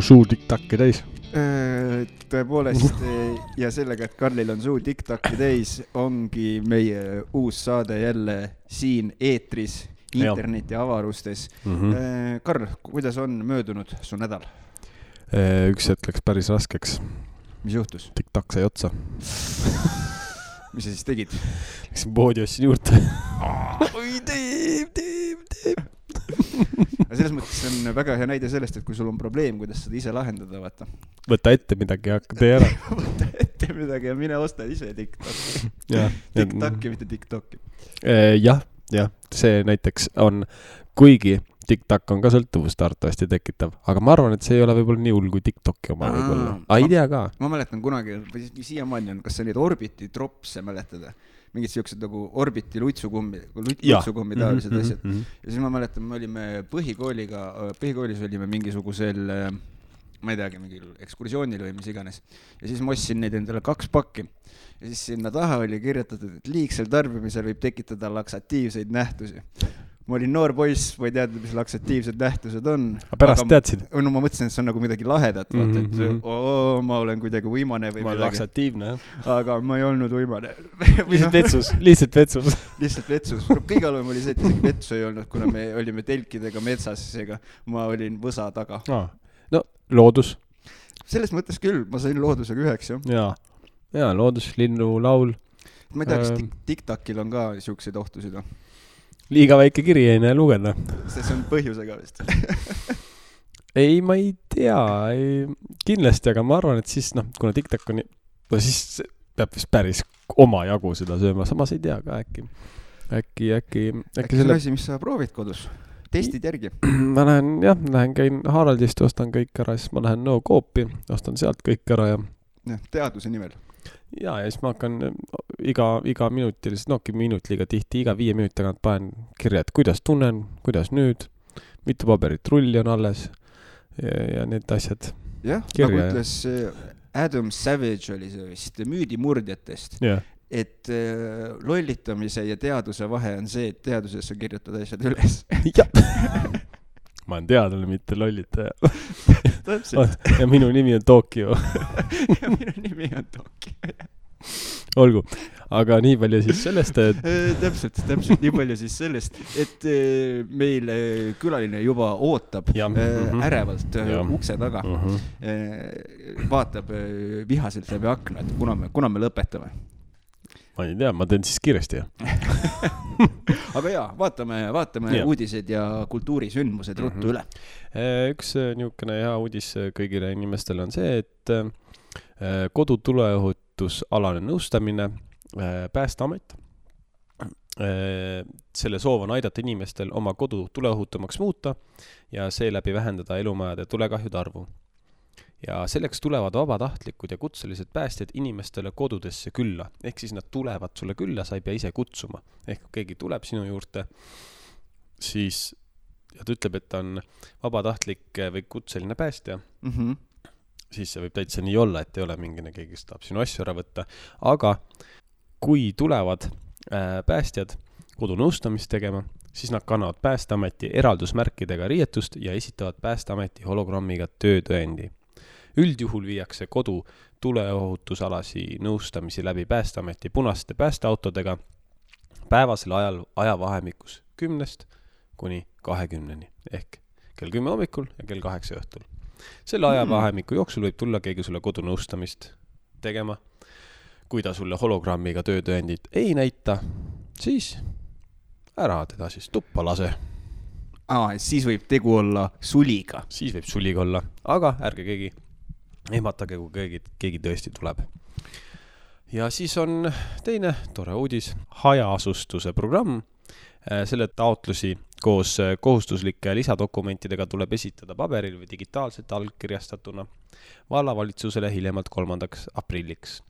suu TikTok'i täis. Tõepoolest ja sellega, et Karlil on suu TikTok'i täis, ongi meie uus saade jälle siin eetris, interneti avarustes. Karl, kuidas on möödunud su nädal? Üks hetk läks päris raskeks. Mis juhtus? TikTok sai otsa. Mis sa siis tegid? Läksin poodi ostsin juurde. Oi, teeb. Selles mõttes on väga hea näide sellest, et kui sul on probleem, kuidas seda ise lahendada, vaata. Võta ette midagi ja hakka tee ära. Võta ette midagi ja mine osta ise TikTok'i. TikTok'i, mitte TikTok'i. Jah, see näiteks on, kuigi TikTok on ka sõltuvust arvatavasti tekitav, aga ma arvan, et see ei ole võib-olla nii hull kui TikTok'i oma võib-olla. Ei tea ka. Ma mäletan kunagi, või siiamaani on, kas see neid Orbiti dropse mäletada? Mingid siuksed nagu Orbiti luitsukummi taolised asjad. Ja siis ma mäletan, me olime põhikoolis olime mingisugusel, ma ei teagi, mingil ekskursioonil või mis iganes. Ja siis ma ostsin neid endale 2 pakki. Ja siis sinna taha oli kirjutatud, et liigsel tarbimisel võib tekitada laksatiivseid nähtusi. Ma olin noor poiss, ma ei teadnud, mis laksatiivsed nähtused on. Aga pärast teadsid? No ma mõtlesin, et see on nagu midagi lahedat, et ma olen kuidagi võimane või midagi. Ma olen laksatiivne, jah. Aga ma ei olnud võimane. Lihtsalt vetsus. Kõige halvem oli see, et isegi vetsu ei olnud, kuna me olime telkidega metsas, seega ma olin võsa taga. No, loodus. Selles mõttes küll, ma sain loodusega 1, jah. Ja, loodus, linnu, laul. Ma ei tea, kas TikTokil on ka siukseid ohtusid, või? Liiga väike kiri ei näe lugeda. See on põhjusega vist. Ei, ma ei tea. Kindlasti, aga ma arvan, et siis, kuna TikTok on, siis peab vist päris oma jagu seda sööma. Samas ei tea ka äkki. Äkki see on asi, mis sa proovid kodus? Testid järgi? Ma lähen käin Haraldist, ostan kõik ära, siis ma lähen Coopi, ostan sealt kõik ära ja teaduse nimel. Ja siis ma hakkan iga minutilisest, minut liiga tihti, iga 5 minuti tagant panen kirja, et kuidas tunnen, kuidas nüüd, mitu paberit rulli on alles ja need asjad. Jah, nagu ütles Adam Savage oli see vist müüdimurdjatest, et lollitamise ja teaduse vahe on see, et teaduses sa kirjutad asjad üles. Ma olen teadlane, mitte lollitaja. Ja minu nimi on Tokyo. Ja minu nimi on Tokyo. Olgu, aga nii palju siis sellest, et... Täpselt, nii palju siis sellest, et meil külaline juba ootab ärevalt ukse taga. Vaatab vihaselt läbi akna, et kuna me lõpetame. Ma ei tea, ma teen siis kiiresti. Aga jaa, vaatame uudised ja kultuurisündmused ruttu üle. Üks niisugune hea uudis kõigile inimestele on see, et kodutuleohutusalane nõustamine Päästeamet. Selle soov on aidata inimestel oma kodu tuleohutumaks muuta ja seeläbi vähendada elumajade tulekahjude arvu. Ja selleks tulevad vabatahtlikud ja kutselised päästjad inimestele kodudesse külla. Ehk siis nad tulevad sulle külla, sa ei pea ise kutsuma. Ehk kui keegi tuleb sinu juurde, siis ja ta ütleb, et ta on vabatahtlik või kutseline päästja, siis see võib täitsa nii olla, et ei ole mingine keegi, kes tahab sinu asju ära võtta. Aga kui tulevad päästjad kodunõustamist tegema, siis nad kannavad Päästeameti eraldusmärkidega riietust ja esitavad Päästeameti hologrammiga töötõendi. Üldjuhul viiakse kodu tuleohutusalasi nõustamisi läbi Päästeameti punaste päästeautodega päevasel ajavahemikus 10 kuni 20 ehk kell 10 hommikul ja kell 8 õhtul. Selle ajavahemiku jooksul võib tulla keegi sulle kodunõustamist tegema. Kui ta sulle hologrammiga töötõendit ei näita, siis ära teda siis tuppa lase. Siis võib tegu olla suliga. Siis võib suliga olla, aga ärge keegi ehmatage, kui keegi tõesti tuleb. Ja siis on teine tore uudis, hajaasustuse programm. Selle taotlusi koos kohustuslike lisadokumentidega tuleb esitada paberil või digitaalselt allkirjastatuna vallavalitsusele hiljemalt 3. aprilliks.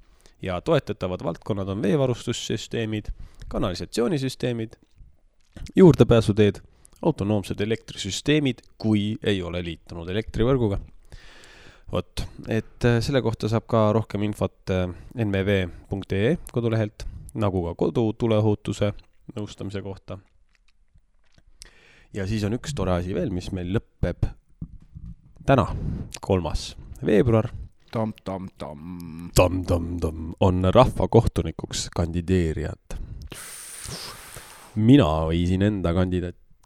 Ja toetatavad valdkonnad on veevarustussüsteemid, kanalisatsioonisüsteemid, juurdepääsuteed, autonoomsed elektrisüsteemid, kui ei ole liitunud elektrivõrguga. Et selle kohta saab ka rohkem infot nmv.ee kodulehelt, nagu ka kodutuleohutuse nõustamise kohta. Ja siis on üks tore asi veel, mis meil lõpeb täna, 3. veebruar, on rahvakohtunikuks kandideerijad. Mina viisin enda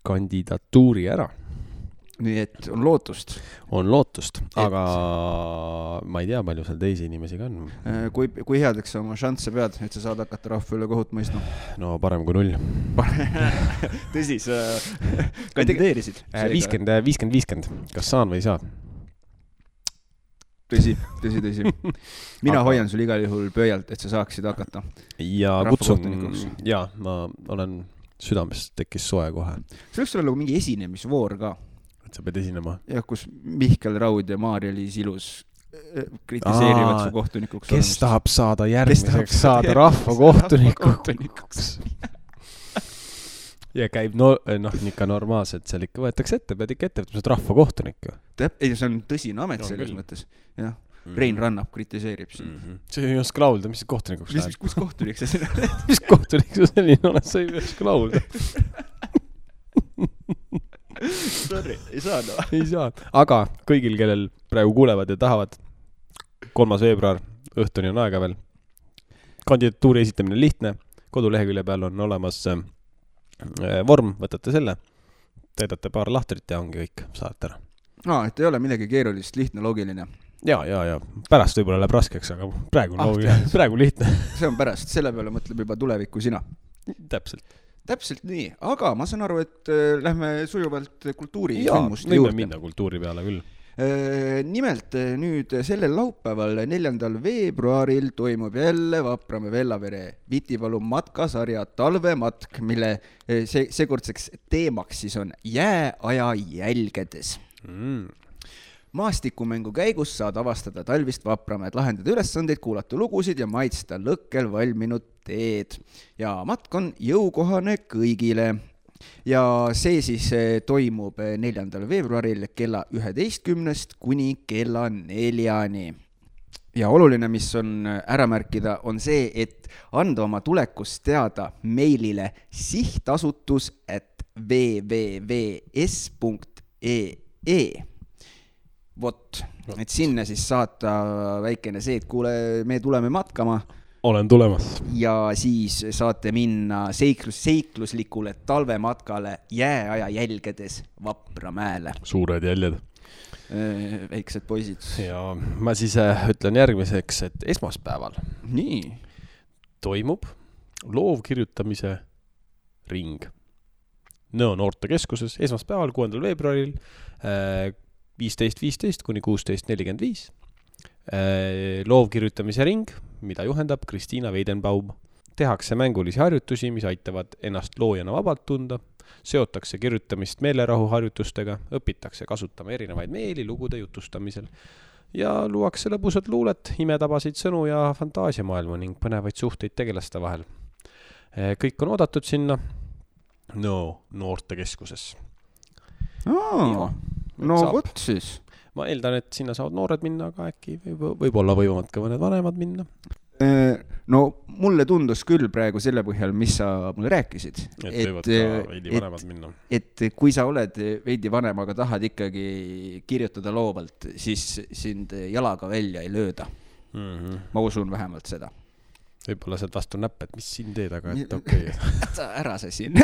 kandidatuuri ära. Nii et on lootust. On lootust, aga ma ei tea, palju seal teisi inimesi ka on. Kui headeks sa oma šansse pead, et sa saad hakata rahva üle kohut mõistma? No parem kui 0. Tõsi, sa kandideerisid? 50-50. Kas saan või ei saa? Tõsi. Mina hoian sul igal juhul pööjalt, et sa saaksid hakata. Ja kutsun, ma olen südamest tekkis soe kohe. See võiks olla mingi esinemisvoor ka. Et sa pead esinema. Ja kus Mihkel Raud ja Maarja-Liis Ilus kritiseerivad su kohtunikuks. Kes tahab saada järgmiseks saada rahvakohtunikuks? Ja käib, ikka normaalselt, seal ikka võetakse ette, pead ikka ette, et sa oled rahvakohtunik. Ei, see on tõsine amet selles mõttes. Jah. Rein Rannap kritiseerib siin. See ei oska laulda, mis kohtunikuks läheb? Kus kohtunik sa selline oled? Mis kohtunik sa selline oled? Sa ei oska laulda. Sorry, ei saa. Ei saa. Aga kõigil, kellel praegu kuulevad ja tahavad, 3. veebruar, õhtuni on aega veel. Kandidatuuri esitamine lihtne. Kodulehekülje peal on olemas vorm, võtate selle, täidate paar lahtrit ja ongi kõik, saate ära. Et ei ole midagi keerulist, lihtne, loogiline. Ja. Pärast võib-olla läheb raskeks, aga praegu lihtne. See on pärast, selle peale mõtleb juba tulevikku sina. Täpselt nii, aga ma saan aru, et lähme sujuvalt kultuuri sündmuste juurde. Võime minna kultuuri peale küll. Nimelt nüüd sellel laupäeval 4. veebruaril toimub jälle Vapramäe Vellavere Vitipalu matkasarja talvematk, mille seekordseks teemaks siis on jääaja jälgedes. Maastikumängu käigus saad avastada talvist Vapramäed, lahendada ülesandeid, kuulata lugusid ja maitsta lõkkel valminud teed. Ja matk on jõukohane kõigile. Ja see siis toimub 4. veebruaril kella 11 kuni kella 4. Ja oluline, mis on ära märkida, on see, et anda oma tulekust teada meilile sihtasutus@www.s.ee. Vot, et sinna siis saata väikene see, et kuule, me tuleme matkama. Olen tulemas. Ja siis saate minna seikluslikule talvematkale jääaja jälgedes Vapramäele. Suured jäljed. Väiksed poisid. Ja ma siis ütlen järgmiseks, et esmaspäeval toimub loovkirjutamise ring. Noortekeskuses esmaspäeval 6. veebruaril 15.15 kuni 16.45. Loovkirjutamise ring, mida juhendab Kristiina Weidenbaum. Tehakse mängulisi harjutusi, mis aitavad ennast loojana vabalt tunda. Seotakse kirjutamist meelerahu harjutustega, õpitakse kasutama erinevaid meeli lugude jutustamisel ja luuakse lõbusad luulet, imetabasid sõnu ja fantaasiamaailma ning põnevaid suhteid tegelaste vahel. Kõik on oodatud sinna noortekeskuses. Vot siis. Ma eeldan, et sinna saavad noored minna, aga äkki võib-olla võivad ka mõned vanemad minna. Mulle tundus küll praegu selle põhjal, mis sa mulle rääkisid. Et võivad ka veidi vanemad minna. Et kui sa oled veidi vanem, aga tahad ikkagi kirjutada loovalt, siis sind jalaga välja ei lööda. Ma usun vähemalt seda. Võib-olla sealt vastu näpp, et mis siin teed, aga et okei. Ära see siin.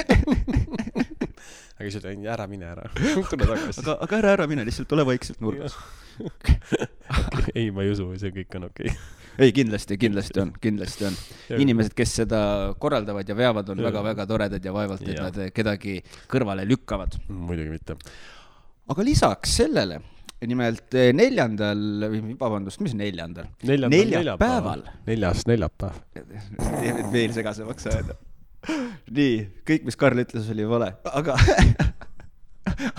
Aga siis ütlen, ära mine ära. Tule tagasi. Aga ära mine, lihtsalt ole vaikselt nurgas. Ei, ma ei usu, see kõik on okei. Ei, kindlasti on. Inimesed, kes seda korraldavad ja veavad, on väga-väga toredad ja vaevalt, et nad kedagi kõrvale lükkavad. Muidugi mitte. Aga lisaks sellele, nimelt 4. neljapäeval. 4. neljapäev. Veel segasemaks ajada. Nii, kõik, mis Karl ütles, oli vale.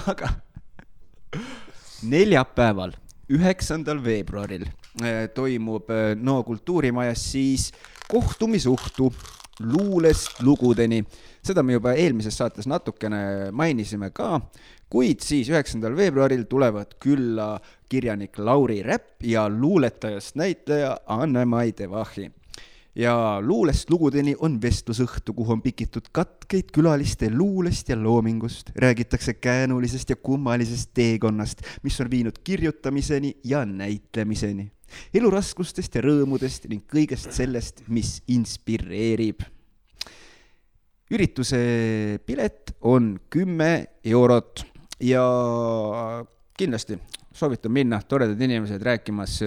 Aga neljapäeval, 9. veebruaril toimub Kultuurimajas siis kohtumisuhtu luulest lugudeni. Seda me juba eelmises saates natukene mainisime ka, kuid siis 9. veebruaril tulevad külla kirjanik Lauri Räpp ja luuletajast näitleja Anne-Mai Devahi. ja luulest lugudeni on vestlusõhtu, kuhu on pikitud katkeid külaliste luulest ja loomingust. Räägitakse käänulisest ja kummalisest teekonnast, mis on viinud kirjutamiseni ja näitlemiseni. Eluraskustest ja rõõmudest ning kõigest sellest, mis inspireerib. Ürituse pilet on 10 eurot ja kindlasti soovitan minna, toredad inimesed rääkimas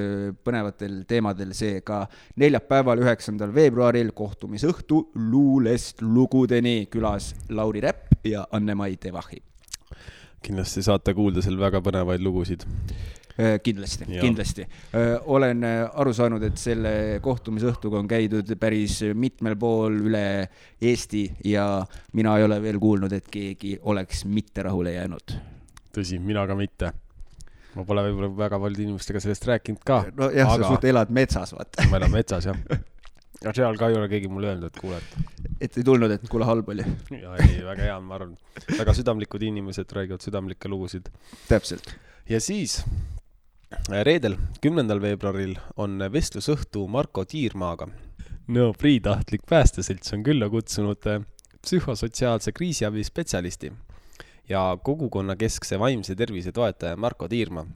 põnevatel teemadel, seega neljapäeval 9. veebruaril kohtumisõhtu luulest lugudeni, külas Lauri Räpp ja Anne-Mai Tevahi. Kindlasti saate kuulda seal väga põnevaid lugusid. Kindlasti. Olen aru saanud, et selle kohtumisõhtuga on käidud päris mitmel pool üle Eesti ja mina ei ole veel kuulnud, et keegi oleks mitte rahule jäänud. Tõsi, mina ka mitte. Ma pole võib-olla väga palju inimestega sellest rääkinud ka. No jah, sa suht elad metsas, vaata. Ma elan metsas, jah. Ja seal ka ei ole keegi mulle öelnud, et kuule, et ei tulnud, et kuule halb oli. Ja ei, väga hea, ma arvan. Väga südamlikud inimesed räägivad südamlikke lugusid. Täpselt. Ja siis reedel, 10. veebruaril on vestlusõhtu Marko Tiirmaaga. No, Priitahtlik päästeselts on külla kutsunud psühhosotsiaalse kriisiabi spetsialisti ja kogukonna keskse vaimse tervise toetaja Marko Tiirma.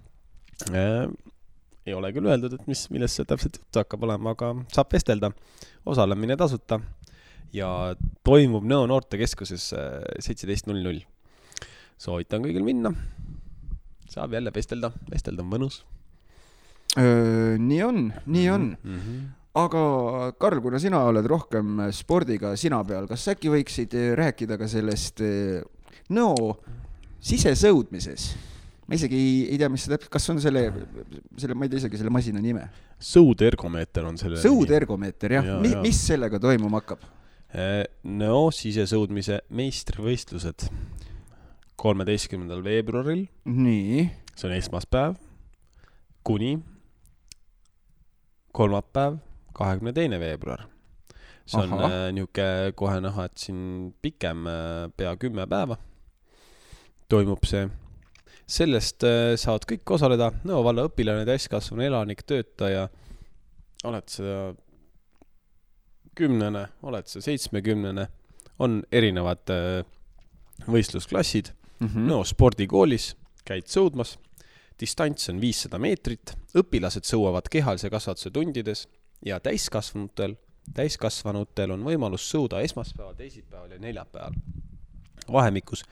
Ei ole küll öeldud, et millest see täpselt juttu hakkab olema, aga saab vestelda. Osalemine tasuta ja toimub Nõo noortekeskuses 17.00. Soovitan kõigil minna. Saab jälle vestelda on mõnus. Nii on. Aga Karl, kuna sina oled rohkem spordiga sina peal, kas äkki võiksid rääkida ka sellest Nõo sisesõudmises? Ma isegi ei tea, mis see täpselt, kas on selle, ma ei tea isegi selle masina nime. Sõudergomeeter on selle. Sõudergomeeter, jah. Mis sellega toimuma hakkab? Nõo sisesõudmise meistrivõistlused 13. veebruaril. Nii. See on esmaspäev kuni kolmapäev 22. veebruar. See on niuke kohe näha, et siin pikem pea 10 päeva toimub see. Sellest saavad kõik osaleda. Nõo valla õpilane, täiskasvanu elanik, töötaja. Oled sa 10, oled sa 70. On erinevad võistlusklassid. Nõo spordikoolis käid sõudmas. Distants on 500 meetrit. Õpilased sõuavad kehalise kasvatuse tundides ja täiskasvanutel on võimalus sõuda esmaspäeval, teisipäeval ja neljapäeval. Vahemikus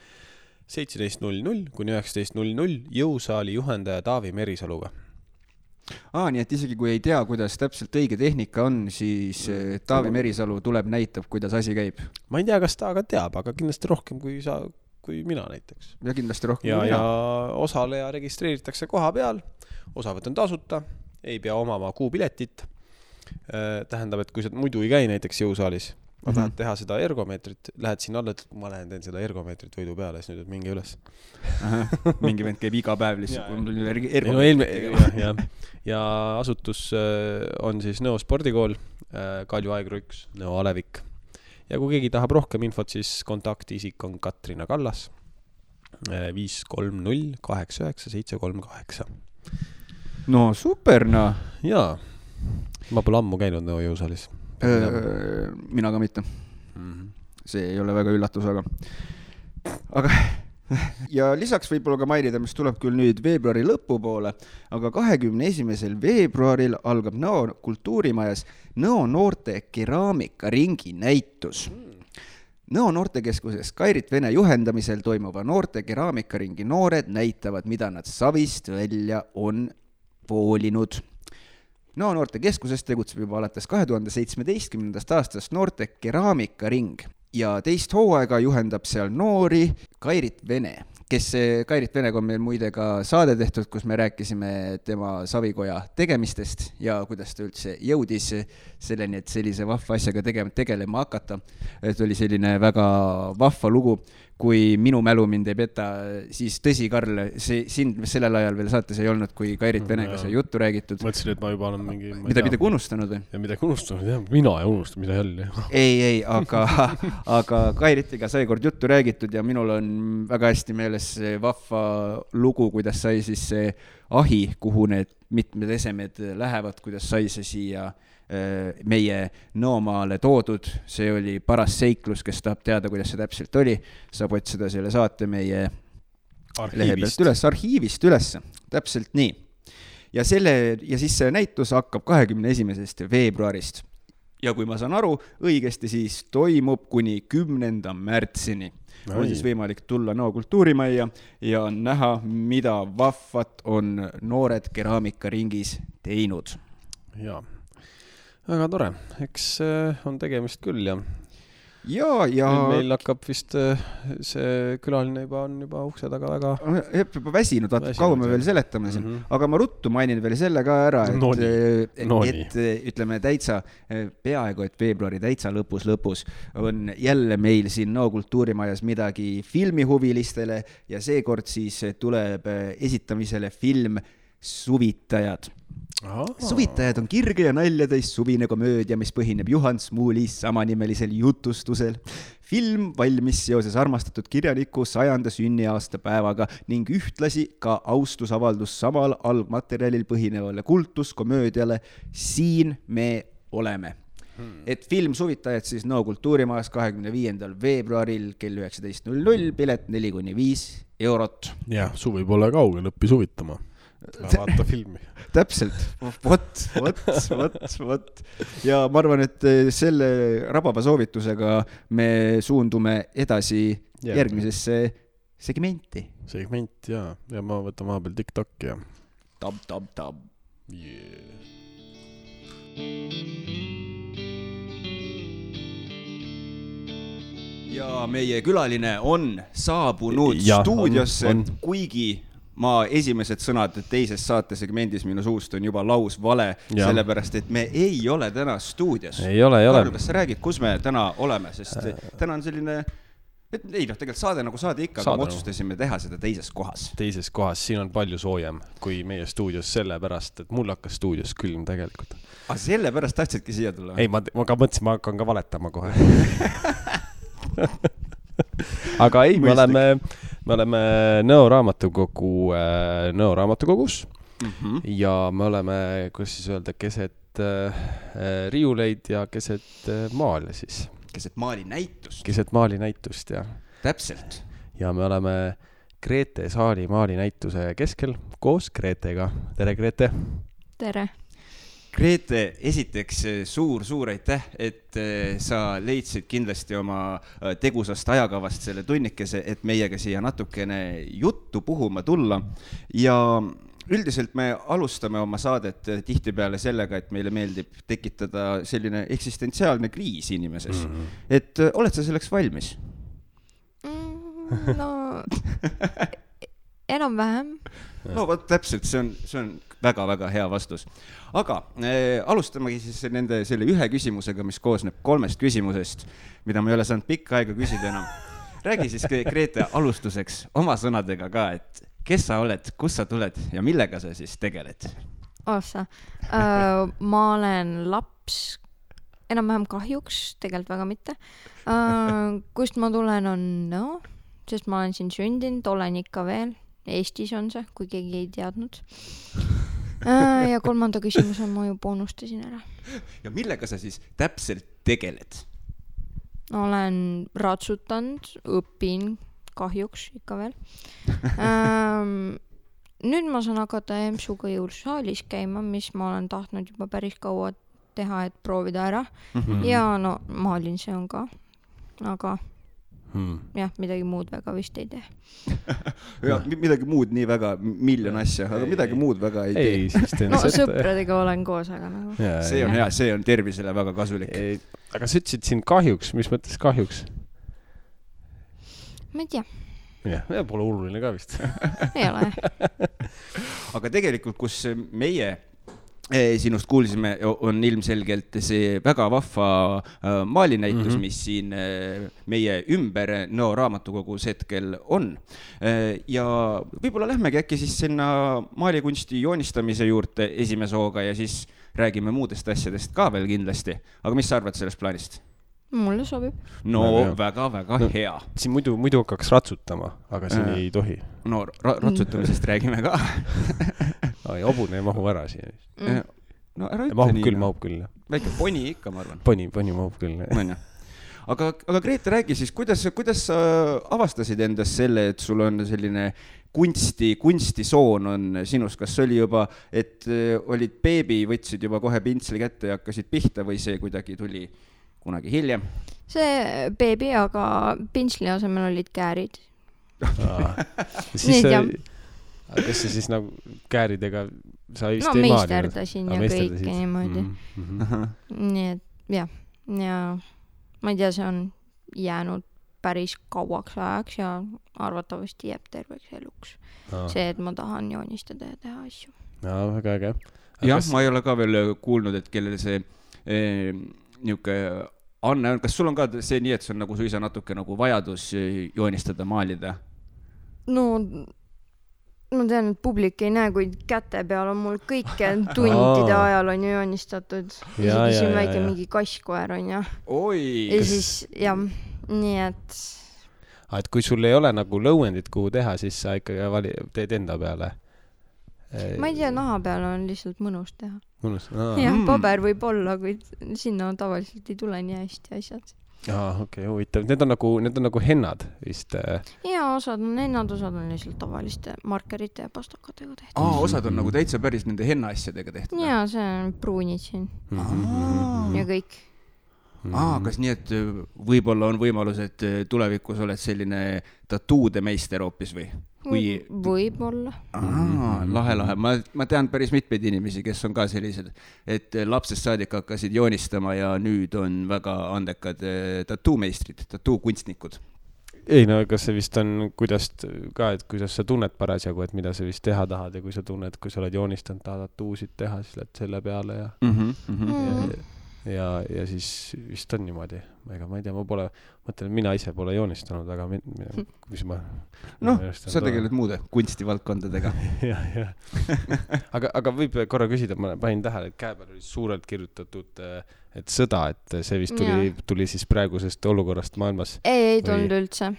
17.00 kuni 19.00 jõusaali juhendaja Taavi Merisaluga. Nii et isegi kui ei tea, kuidas täpselt õige tehnika on, siis Taavi Merisalu tuleb näitab, kuidas asi käib. Ma ei tea, kas ta aga teab, aga kindlasti rohkem kui mina näiteks. Ja kindlasti rohkem kui mina. Ja osaleja registreeritakse koha peal, osavõtt on tasuta, ei pea omama kuupiletit. Tähendab, et kui sa muidu ei käi näiteks jõusaalis, ma tahan teha seda ergomeetrit, lähed siin alla, et ma lähen teen seda ergomeetrit võidu peale, siis nüüd mingi üles. Mingi vend käib iga päev lihtsalt. Ja asutus on siis Nõo spordikool, Kalju Aegru 1, Nõo Alevik. Ja kui keegi tahab rohkem infot, siis kontaktiisik on Katrina Kallas 530 89 738. No super, no. Jaa, ma pole ammu käinud Nõo jõusaalis. Mina ka mitte. See ei ole väga üllatus, aga ja lisaks võib-olla ka mainida, mis tuleb küll nüüd veebruari lõpupoole, aga 21. veebruaril algab Nõo kultuurimajas Nõo noorte keraamikaringi näitus. Nõo noortekeskuses Kairit Vene juhendamisel toimuva noorte keraamikaringi noored näitavad, mida nad savist välja on voolinud. Nõo noortekeskuses tegutseb juba alates 2017. aastast noorte keraamikaring ja teist hooaega juhendab seal noori Kairit Vene, kes Kairit Venega on meil muide ka saade tehtud, kus me rääkisime tema savikoja tegemistest ja kuidas ta üldse jõudis selleni, et sellise vahva asjaga tegelema hakata. Et oli selline väga vahva lugu, kui minu mälu mind ei peta, siis tõsi, Karl, sind sellel ajal veel saates ei olnud, kui Kairit Venega see juttu räägitud. Mõtlesin, et ma juba olen mingi... Midagi unustanud või? Ja midagi unustanud, jah. Mina ei unustanud, mida jälle. Ei, aga Kairitiga sai kord juttu räägitud ja minul on väga hästi meeles see vahva lugu, kuidas sai siis see ahi, kuhu need mitmed esemed lähevad, kuidas sai see siia meie Nõomaale toodud, see oli paras seiklus, kes tahab teada, kuidas see täpselt oli, saab otsida selle saate meie lehe pealt üles, arhiivist üles, täpselt nii. Ja siis see näitus hakkab 21. veebruarist. Ja kui ma saan aru õigesti, siis toimub kuni 10. märtsini. On siis võimalik tulla Nõo kultuurimajja ja näha, mida vahvat on noored keraamikaringis teinud. Jaa, väga tore. Eks on tegemist küll ja meil hakkab vist see külaline on juba ukse taga väga juba väsinud, vaata kaua me veel seletame siin. Aga ma ruttu mainin veel selle ka ära, et ütleme täitsa peaaegu, et veebruari täitsa lõpus on jälle meil siin Nõo kultuurimajas midagi filmihuvilistele ja seekord siis tuleb esitamisele film Suvitajad. Suvitajad on kirge ja naljatäis suvine komöödia, mis põhineb Juhan Smuuli samanimelisel jutustusel. Film valmis seoses armastatud kirjaniku 100. sünniaasta päevaga ning ühtlasi ka austusavaldus samal algmaterjalil põhinevale kultuskomöödiale Siin me oleme. Et film Suvitajad siis Nõo kultuurimajas 25. veebruaril kell 19.00, pilet 4-5 eurot. Ja, suvi pole kaugel, õppi suvitama. Vaata filmi. Täpselt, vot. Ja ma arvan, et selle rababa soovitusega me suundume edasi järgmisesse segmenti. Segment, ja ma võtan vahepeal TikTok ja Tab. Yeah. Ja meie külaline on saabunud stuudiosse, kuigi ma esimesed sõnad teises saatesegmendis minu suust on juba laus vale, sellepärast, et me ei ole täna stuudios. Ei ole. Karl, kas sa räägid, kus me täna oleme, sest täna on selline, tegelikult saade nagu saade ikka, aga me otsustasime teha seda teises kohas. Teises kohas, siin on palju soojem kui meie stuudios sellepärast, et mul hakkas stuudios külm tegelikult. Aga sellepärast tahtsidki siia tulla? Ei, ma ka mõtlesin, ma hakkan ka valetama kohe. Aga ei, me oleme Nõo raamatukogus ja me oleme, kuidas siis öelda, keset riiuleid ja keset maali siis. Keset maalinäitust. Keset maalinäitust, jah. Täpselt. Ja me oleme Grete saali maalinäituse keskel koos Gretega. Tere, Grete! Tere! Grete, esiteks suur aitäh, et sa leidsid kindlasti oma tegusast ajakavast selle tunnikese, et meiega siia natukene juttu puhuma tulla. Ja üldiselt me alustame oma saadet tihtipeale sellega, et meile meeldib tekitada selline eksistentsiaalne kriis inimeses. Et oled sa selleks valmis? No, enam-vähem. No, võt, täpselt, see on väga-väga hea vastus. Aga alustamegi siis selle ühe küsimusega, mis koosneb 3 küsimusest, mida ma ei ole saanud pikka aega küsida enam. Räägi siis, Grete, alustuseks oma sõnadega ka, et kes sa oled, kus sa tuled ja millega sa siis tegeled? Ma olen laps, enam-vähem kahjuks, tegelikult väga mitte. Kust ma tulen on Nõo, sest ma olen siin sündinud, olen ikka veel. Eestis on see, kui keegi ei teadnud. Ja 3. küsimus on, ma juba unustasin ära. Ja millega sa siis täpselt tegeled? Olen ratsutanud, õpin kahjuks ikka veel. Nüüd ma saan hakata EMSuga jõulusaalis käima, mis ma olen tahtnud juba päris kaua teha, et proovida ära. Ja no maalin see on ka, aga jah, midagi muud väga vist ei tee. Ja, midagi muud nii väga, miljon asja, aga midagi muud väga ei tee. No sõpradega olen koos, aga nagu. See on hea, see on tervisele väga kasulik. Aga sa ütlesid siin kahjuks, mis mõttes kahjuks? Ma ei tea. Ja pole oluline ka vist. Ei ole. Aga tegelikult, kus meie sinust kuulsime, on ilmselgelt see väga vahva maalinäitus, mis siin meie ümber Nõo raamatukogus hetkel on. Ja võib-olla lähmegi äkki siis sinna maalikunsti joonistamise juurde esimese hooga ja siis räägime muudest asjadest ka veel kindlasti. Aga mis sa arvad sellest plaanist? Mulle sobib. No väga hea. Siin muidu hakkaks ratsutama, aga siin ei tohi. No ratsutamisest räägime ka. Hobune ei mahu ära siin. No ära ütle nii. Mahub küll. Väike poni ikka, ma arvan. Poni mahub küll. Aga Grete, räägi siis, kuidas sa avastasid endast selle, et sul on selline kunstisoon on sinus? Kas oli juba, et olid beebi, võtsid juba kohe pintsli kätte ja hakkasid pihta või see kuidagi tuli kunagi hiljem? See beebi, aga pintsli asemel olid käärid. Kas see siis nagu kääridega sa vist ei maali? No meisterdasin ja kõike niimoodi. Nii et jah, ja ma ei tea, see on jäänud päris kauaks ajaks ja arvatavasti jääb terveks eluks. See, et ma tahan joonistada ja teha asju. Väga äge. Jah, ma ei ole ka veel kuulnud, et kellel see niuke Anne, kas sul on ka see nii, et see on nagu suisa natuke nagu vajadus joonistada, maalida? No, ma tean, et publik ei näe, kuid käte peal on mul kõike tundide ajal on ju joonistatud. Isegi siin väike mingi kasskoer on ja. Oi! Ja siis, jah, nii et... Et kui sul ei ole nagu lõuendit, kuhu teha, siis sa ikkagi teed enda peale? Ma ei tea, naha peal on lihtsalt mõnus teha. Mõnus? Jah, paber võib olla, kuid sinna tavaliselt ei tule nii hästi asjad. Okei, huvitav. Need on nagu hennad vist? Ja, osad on hennad, osad on lihtsalt tavaliste markerite ja pastakatega tehtud. Osad on nagu täitsa päris nende henna asjadega tehtud? Ja, see on pruunid siin. Ja kõik. Kas nii, et võib-olla on võimalus, et tulevikus oled selline tatuude meister hoopis või? Võib-olla. Lahe. Ma tean päris mitmeid inimesi, kes on ka sellised, et lapsest saadik hakkasid joonistama ja nüüd on väga andekad tatuumeistrid, tatuukunstnikud. Ei, no kas see vist on kuidas sa tunned parasjagu, et mida sa vist teha tahad ja kui sa tunned, kui sa oled joonistanud, tahad tatuusid teha, siis lähed selle peale ja siis vist on niimoodi. Ega ma ei tea, mõtlen, mina ise pole joonistanud, aga mis ma... sa tegeled muude kunstivaldkondadega. Aga võib korra küsida, ma panin tähele, et käe peal oli suurelt kirjutatud, et sõda, et see vist tuli siis praegusest olukorrast maailmas. Ei tulnud üldse.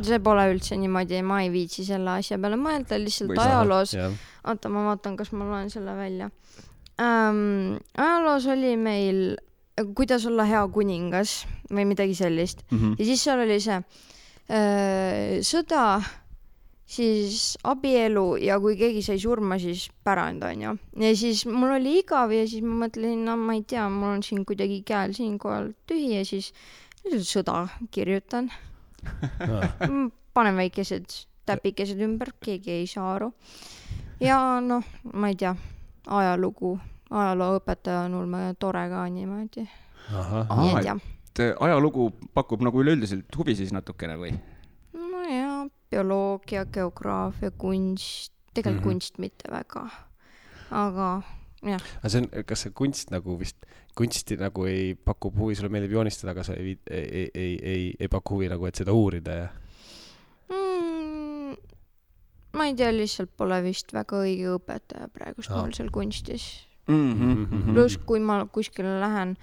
See pole üldse niimoodi, ma ei viitsi selle asja peale mõelda, lihtsalt ajaloos. Oota, ma vaatan, kas ma loen selle välja. Ajaloos oli meil kuidas olla hea kuningas või midagi sellist. Ja siis seal oli see sõda, siis abielu ja kui keegi sai surma, siis pärand on ju. Ja siis mul oli igav ja siis ma mõtlesin, ma ei tea, mul on siin kuidagi käel siinkohal tühi ja siis sõda kirjutan. Panen väikesed täpikesed ümber, keegi ei saa aru. Ja noh, ma ei tea, ajalooõpetaja on ulme tore ka niimoodi. Ajalugu pakub nagu üleüldiselt huvi siis natukene või? No ja, bioloogia, geograafia, kunst, tegelikult kunst mitte väga. Aga jah. Kas see kunst nagu vist, kunsti nagu ei pakub huvi, sulle meeldib joonistada, aga sa ei paku huvi nagu, et seda uurida ja? Ma ei tea, lihtsalt pole vist väga õige õpetaja praegust mul seal kunstis. Plus, kui ma kuskile lähen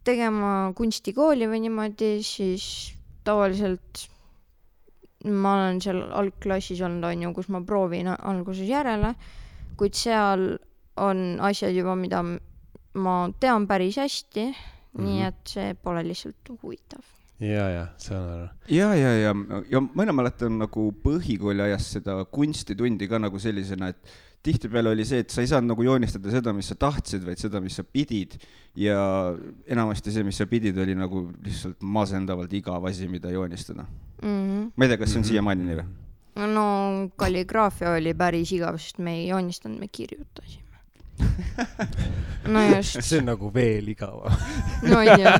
tegema kunstikooli või niimoodi, siis tavaliselt ma olen seal algklassis olnud, on ju, kus ma proovin alguses järele, kuid seal on asjad juba, mida ma tean päris hästi, nii et see pole lihtsalt huvitav. Ja, see on ära. Ja mõne mäletan nagu põhikooli ajas seda kunstitundi ka nagu sellisena, et tihtipeale oli see, et sa ei saanud nagu joonistada seda, mis sa tahtsid, vaid seda, mis sa pidid. Ja enamasti see, mis sa pidid, oli nagu lihtsalt masendavalt igav asi, mida joonistada. Ma ei tea, kas see on siiamaani nii või? No kalligraafia oli päris igav, sest me ei joonistanud, me kirjutasime. No just. See on nagu veel igava. No ei tea.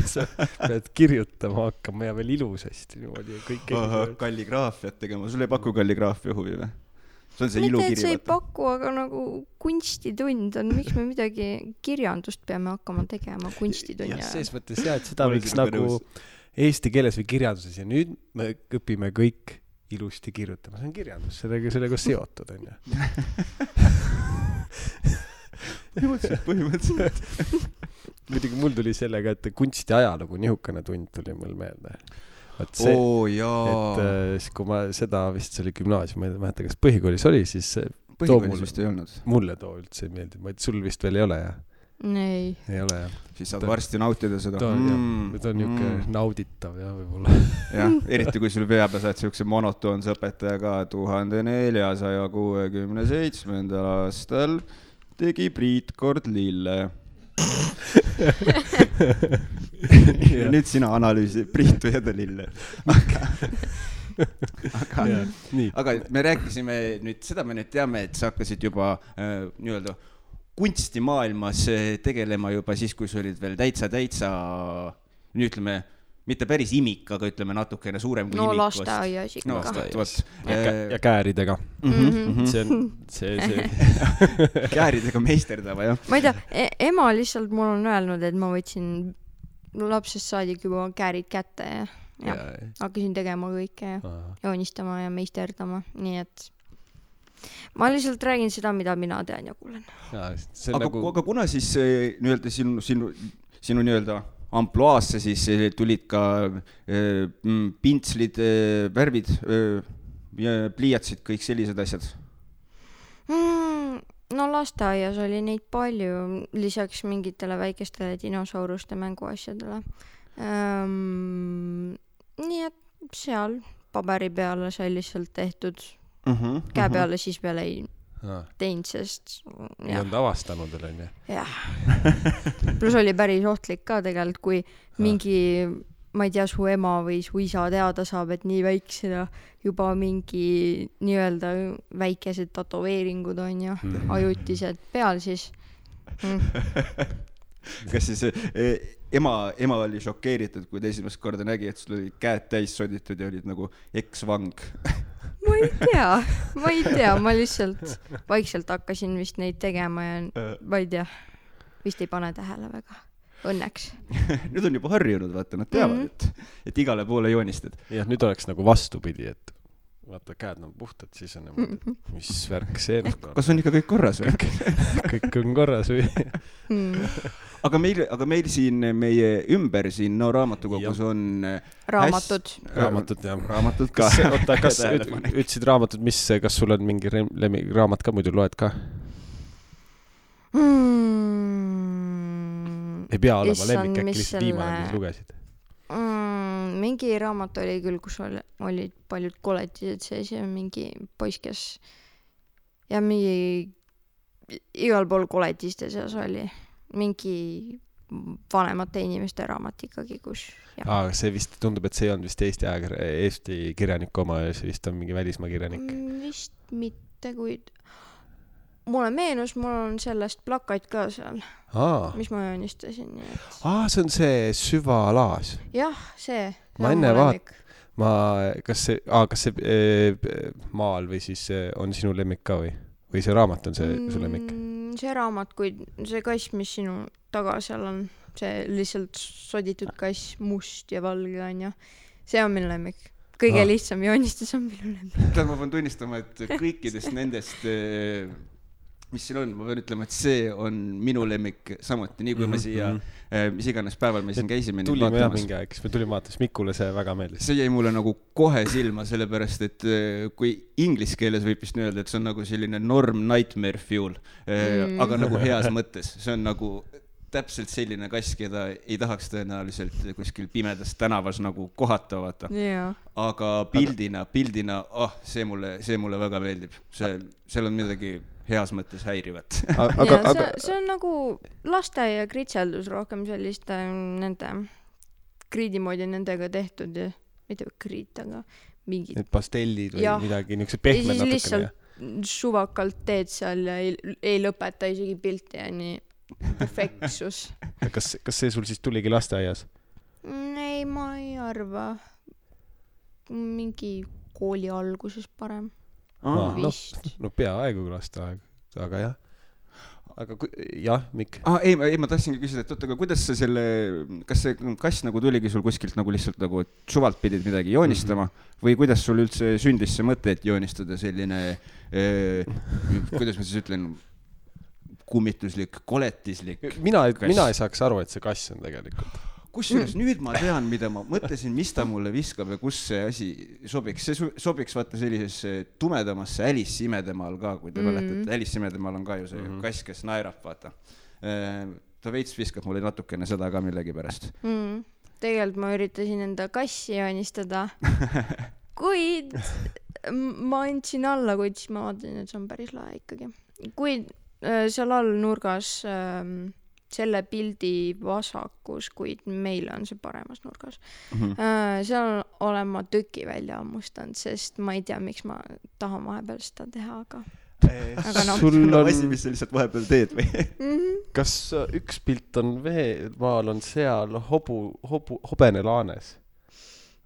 Sa pead kirjutama hakkama ja veel ilusasti. Kalligraafiat tegema. Sul ei paku kalligraafia huvi või? See on see ilukiri. See ei paku, aga nagu kunstitund on, miks me midagi kirjandust peame hakkama tegema kunstitund. Ja sees mõttes jah, et seda võiks nagu eesti keeles või kirjanduses ja nüüd me õpime kõik ilusti kirjutama. See on kirjandus, sellega seotud on ju. Põhimõtteliselt. muidugi mul tuli sellega, et kunstiajalugu nihukene tund tuli mul meelde. See, et siis kui ma seda vist see oli gümnaasium, ma ei mäleta, kas põhikoolis oli, siis põhikoolis vist ei olnud. Mulle too üldse ei meeldi, ma et sul vist veel ei ole, jah? Ei ole, jah. Siis saad varsti nautida seda. Ta on niuke nauditav, jah, võib-olla. Jah, eriti kui sul peab ja saad siukse monotoonse õpetajaga 1467. aastal tegi Priit kord lille. Ja nüüd sina analüüsi Priitu ja ta lille. Aga me rääkisime nüüd, seda me nüüd teame, et sa hakkasid juba nii-öelda kunstimaailmas tegelema juba siis, kui sa olid veel täitsa, nüüd ütleme, mitte päris imik, aga ütleme natukene suurem kui imik. Lasteaias ikka. Ja kääridega. See. Kääridega meisterdava, jah. Ma ei tea, ema lihtsalt mul on öelnud, et ma võtsin lapsest saadik juba käärid kätte ja hakkasin tegema kõike ja joonistama ja meisterdama, nii et ma lihtsalt räägin seda, mida mina tean ja kuulen. Aga kuna siis nii-öelda sinu nii-öelda ampluaasse siis tulid ka pintslid, värvid, pliiatsid, kõik sellised asjad? No lasteaias oli neid palju, lisaks mingitele väikestele dinosauruste mänguasjadele. Nii et seal paberi peale sai lihtsalt tehtud käe peale, siis peale ei teinud, sest ei olnud avastanud veel, on ju? Jah. Plus oli päris ohtlik ka tegelikult, kui mingi, ma ei tea, su ema või su isa teada saab, et nii väiksena juba mingi nii-öelda väikesed tatoveeringud on ju, ajutised peal, siis Kas siis ema oli šokeeritud, kui ta esimest korda nägi, et sul olid käed täis soditud ja olid nagu eksvang? Ma ei tea, ma lihtsalt vaikselt hakkasin vist neid tegema ja ma ei tea, vist ei pane tähele väga, õnneks. Nüüd on juba harjunud, vaata, nad teavad, et igale poole joonistad. Jah, nüüd oleks nagu vastupidi, et vaata, käed on puhtad, siis on nagu, mis värk see on. Kas on ikka kõik korras või? Kõik on korras või? Aga meil siin meie ümber siin raamatukogus on raamatud, jah. Raamatud ka. Oota, kas ütlesid raamatud, kas sul on mingi raamat ka muidu loed ka? Ei pea olema lemmik, äkki lihtsalt viimane, mis lugesid? Mingi raamat oli küll, kus olid paljud koletised sees ja mingi poiss, kes ja mingi igal pool koletiste seas oli mingi vanemate inimeste raamat ikkagi, kus see vist tundub, et see on vist Eesti kirjaniku oma ja see vist on mingi välismaa kirjanik. Vist mitte, kuid mulle meenus, mul on sellest plakat ka seal, mis ma joonistasin. See on see Süvalaas. Jah, see. Ma enne kas see maal või siis on sinu lemmik ka või see raamat on see su lemmik? See raamat, kui see kass, mis sinu taga seal on, see lihtsalt soditud kass, must ja valge on ja see on minu lemmik. Kõige lihtsam joonistus on minu lemmik. Ma pean tunnistama, et kõikidest nendest mis siin on, ma pean ütlema, et see on minu lemmik samuti, nii kui me siia, mis iganes päeval me siin käisime. Tulime jah mingi aeg, me tulime vaatas, Mikule see väga meeldis. See jäi mulle nagu kohe silma, sellepärast, et kui inglise keeles võib vist öelda, et see on nagu selline norm nightmare fuel, aga nagu heas mõttes. See on nagu täpselt selline kass, keda ei tahaks tõenäoliselt kuskil pimedas tänavas nagu kohata vaata. Aga pildina, see mulle väga meeldib. Seal on midagi heas mõttes häirivat. See on nagu lasteaia kritseldus rohkem selliste nende kriidi moodi nendega tehtud ja mitte kriit, aga mingid need pastellid või midagi, niisugused pehmed natukene. Lihtsalt suvakalt teed seal ja ei lõpeta isegi pilti ja nii perfektsus. Kas see sul siis tuligi lasteaias? Ei, ma ei arva. Mingi kooli alguses parem. No peaaegu lasteaeg, aga jah. Aga jah, Mikk? Ei, ma tahtsingi küsida, et aga kuidas sa kas see kass nagu tuligi sul kuskilt nagu lihtsalt nagu suvalt pidid midagi joonistama või kuidas sul üldse sündis see mõte, et joonistada selline, kuidas ma siis ütlen, kummituslik, koletislik. Mina ei saaks aru, et see kass on tegelikult. Kusjuures nüüd ma tean, mida ma mõtlesin, mis ta mulle viskab ja kus see asi sobiks. See sobiks vaata sellisesse tumedamasse Alice imedemaal ka, kui te mäletate. Alice imedemaal on ka ju see kass, kes naerab, vaata. Ta veits viskab mulle natukene seda ka millegi pärast. Tegelikult ma üritasin enda kassi joonistada, kuid ma andsin alla, kuid siis ma vaatasin, et see on päris lahe ikkagi. Kuid seal all nurgas selle pildi vasakus, kuid meil on see paremas nurgas. Seal olen ma tüki välja ammustanud, sest ma ei tea, miks ma tahan vahepeal seda teha, aga sul on asi, mis sa lihtsalt vahepeal teed või? Kas üks pilt on maal on seal hobene laanes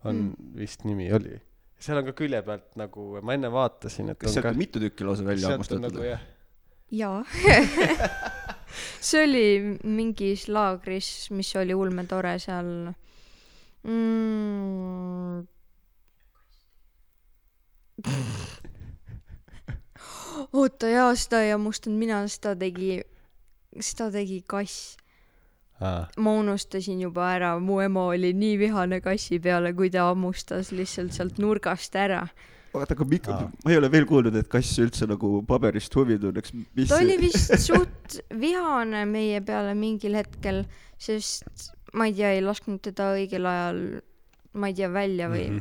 on vist nimi oli. Seal on ka külje pealt nagu, ma enne vaatasin, et kas sealt on mitu tükki lausa välja ammustatud? Nagu, jaa. See oli mingis laagris, mis oli ulme tore seal. Oota, jaa, seda ei ammustanud mina, seda tegi kass. Ma unustasin juba ära, mu ema oli nii vihane kassi peale, kui ta ammustas lihtsalt sealt nurgast ära. Aga ma ei ole veel kuulnud, et kass üldse nagu paberist huvi tunneks. Ta oli vist suht vihane meie peale mingil hetkel, sest ma ei tea, ei lasknud teda õigel ajal, ma ei tea, välja või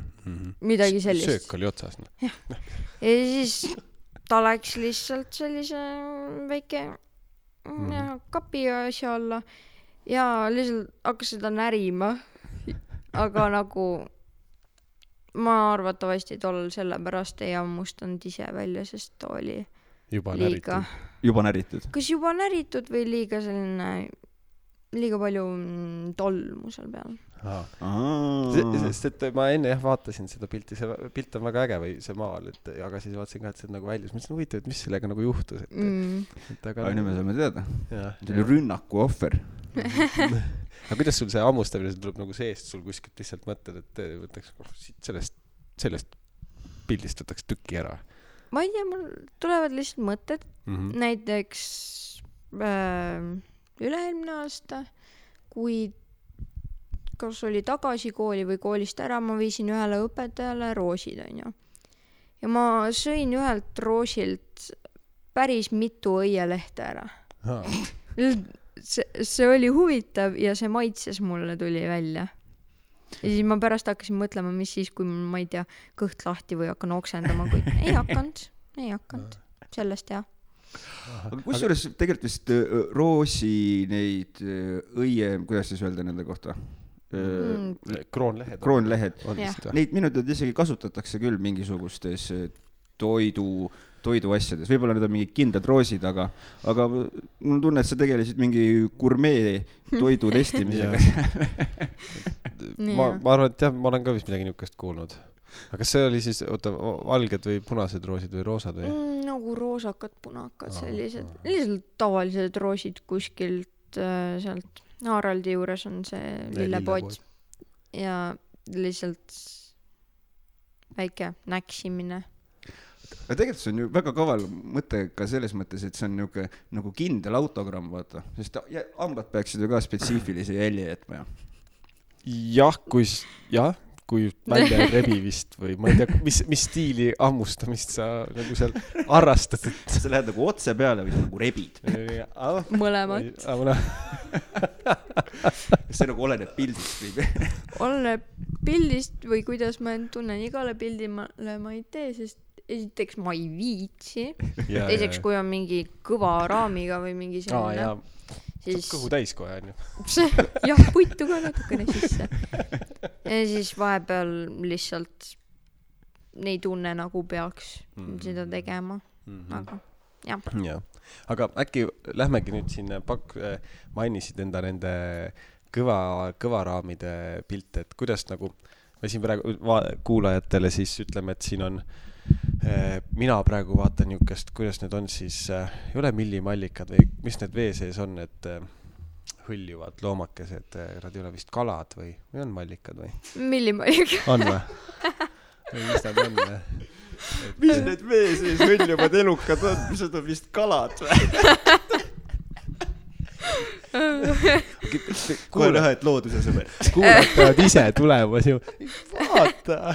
midagi sellist. Söök oli otsas. Ja siis ta läks lihtsalt sellise väike kapi asja alla ja lihtsalt hakkas seda närima, aga nagu ma arvatavasti tollel sellepärast ei ammustanud ise välja, sest ta oli juba näritud. Kas juba näritud või liiga palju tolmu seal peal? Sest et ma enne vaatasin seda pilti, see pilt on väga äge või see maal, aga siis vaatasin ka, et see on nagu väljas. Mõtlesin huvitav, et mis sellega nagu juhtus. Aga nüüd me saame teada. See oli rünnaku ohver. Aga kuidas sul see ammustamine tuleb nagu seest, sul kuskilt lihtsalt mõtled, et võtaks sellest pildist võtaks tükki ära? Ma ei tea, mul tulevad lihtsalt mõtted. Näiteks üle-eelmine aasta, kui kas oli tagasi kooli või koolist ära, ma viisin ühele õpetajale roosid, on ju. Ja ma sõin ühelt roosilt päris mitu õielehte ära. See oli huvitav ja see maitses mulle tuli välja. Ja siis ma pärast hakkasin mõtlema, mis siis, kui ma ei tea, kõht lahti või hakkan oksendama, kuid ei hakanud. Sellest jah. Aga kusjuures tegelikult vist roosi neid õie, kuidas siis öelda nende kohta? Kroonlehed. Neid minu teada isegi kasutatakse küll mingisugustes toidu asjades. Võib-olla need on mingid kindlad roosid, aga mul tunne, et sa tegelesid mingi gurmee toidu testimisega. Ma arvan, et jah, ma olen ka vist midagi niukest kuulnud. Aga kas see oli siis, valged või punased roosid või roosad või? Nagu roosakad, punakad, sellised. Lihtsalt tavalised roosid kuskilt sealt Haraldi juures on see lillepood ja lihtsalt väike näksimine. Aga tegelikult see on ju väga kaval mõte ka selles mõttes, et see on nagu kindel autogramm, vaata. Sest hambad peaksid ju ka spetsiifilise jälje jätma. Kui välja rebi vist või ma ei tea, mis stiili ammustamist sa nagu seal harrastad. Sa lähed nagu otse peale või nagu rebid? Mõlemad. See nagu oleneb pildist või? Oleneb pildist või kuidas ma tunnen igale pildile ma ei tee, sest esiteks ma ei viitsi. Teiseks, kui on mingi kõva raamiga või mingi selline. Saab kõhu täis kohe, on ju. Jah, puitu ka natukene sisse. Ja siis vahepeal lihtsalt ei tunne nagu peaks seda tegema. Aga jah. Aga äkki lähmegi nüüd siin mainisid enda nende kõvaraamide pilte, et kuidas nagu me siin praegu kuulajatele siis ütleme, et siin on mina praegu vaatan niukest, kuidas need on siis, ei ole millimallikad või mis need vee sees on, et hõljuvad loomakesed, nad ei ole vist kalad või on mallikad või? Millimallikad. On või? Mis nad on? Mis need vee sees hõljuvad elukad on? Mis nad on vist kalad või? kohe näha, et looduse sõber. Kuulatavad ise tulemas ju. Vaata.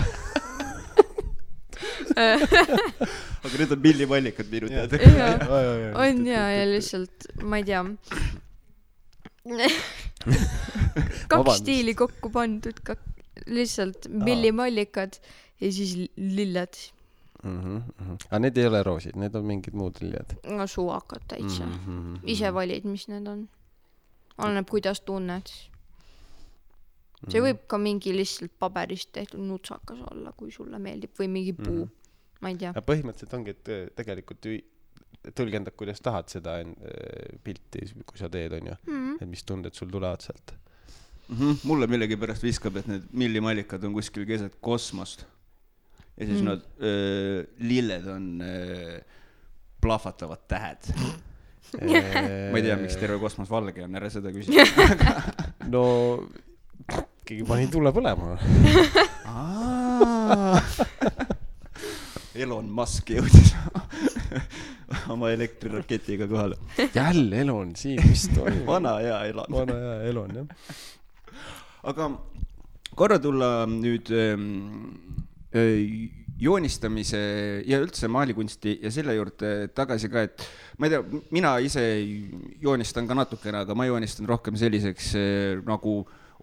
Aga need on millimallikad minu teada. On ja lihtsalt, ma ei tea. Kaks stiili kokku pandud, lihtsalt millimallikad ja siis lilled. Aga need ei ole roosid, need on mingid muud lilled. No suvakad täitsa. Ise valid, mis need on. Oleneb, kuidas tunned. See võib ka mingi lihtsalt paberist tehtud nutsakas olla, kui sulle meeldib, või mingi puu. Ma ei tea. Ja põhimõtteliselt ongi, et tegelikult tõlgendab, kuidas tahad seda pilti, kui sa teed, on ju. Et mis tunded sul tulevad sealt. Mulle millegi pärast viskab, et need millimallikad on kuskil keset kosmost. Ja siis nad lilled on plahvatavad tähed. Ma ei tea, miks terve kosmos valge on, ära seda küsida. No, keegi pani tule põlema. Elon Musk jõudis oma elektriraketiga kohale. Jälle Elon siin, mis toimub? Vana hea Elon. Vana hea Elon, jah. Aga korra tulla nüüd joonistamise ja üldse maalikunsti ja selle juurde tagasi ka, et ma ei tea, mina ise joonistan ka natukene, aga ma joonistan rohkem selliseks nagu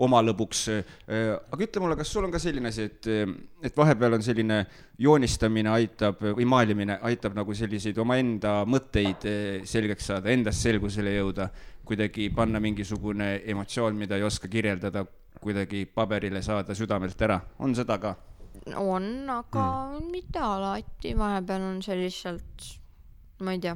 oma lõbuks. Aga ütle mulle, kas sul on ka selline asi, et vahepeal on selline joonistamine aitab või maalimine aitab nagu selliseid oma enda mõtteid selgeks saada, endast selgusele jõuda, kuidagi panna mingisugune emotsioon, mida ei oska kirjeldada, kuidagi paberile saada südamelt ära. On seda ka? On, aga mitte alati. Vahepeal on see lihtsalt, ma ei tea,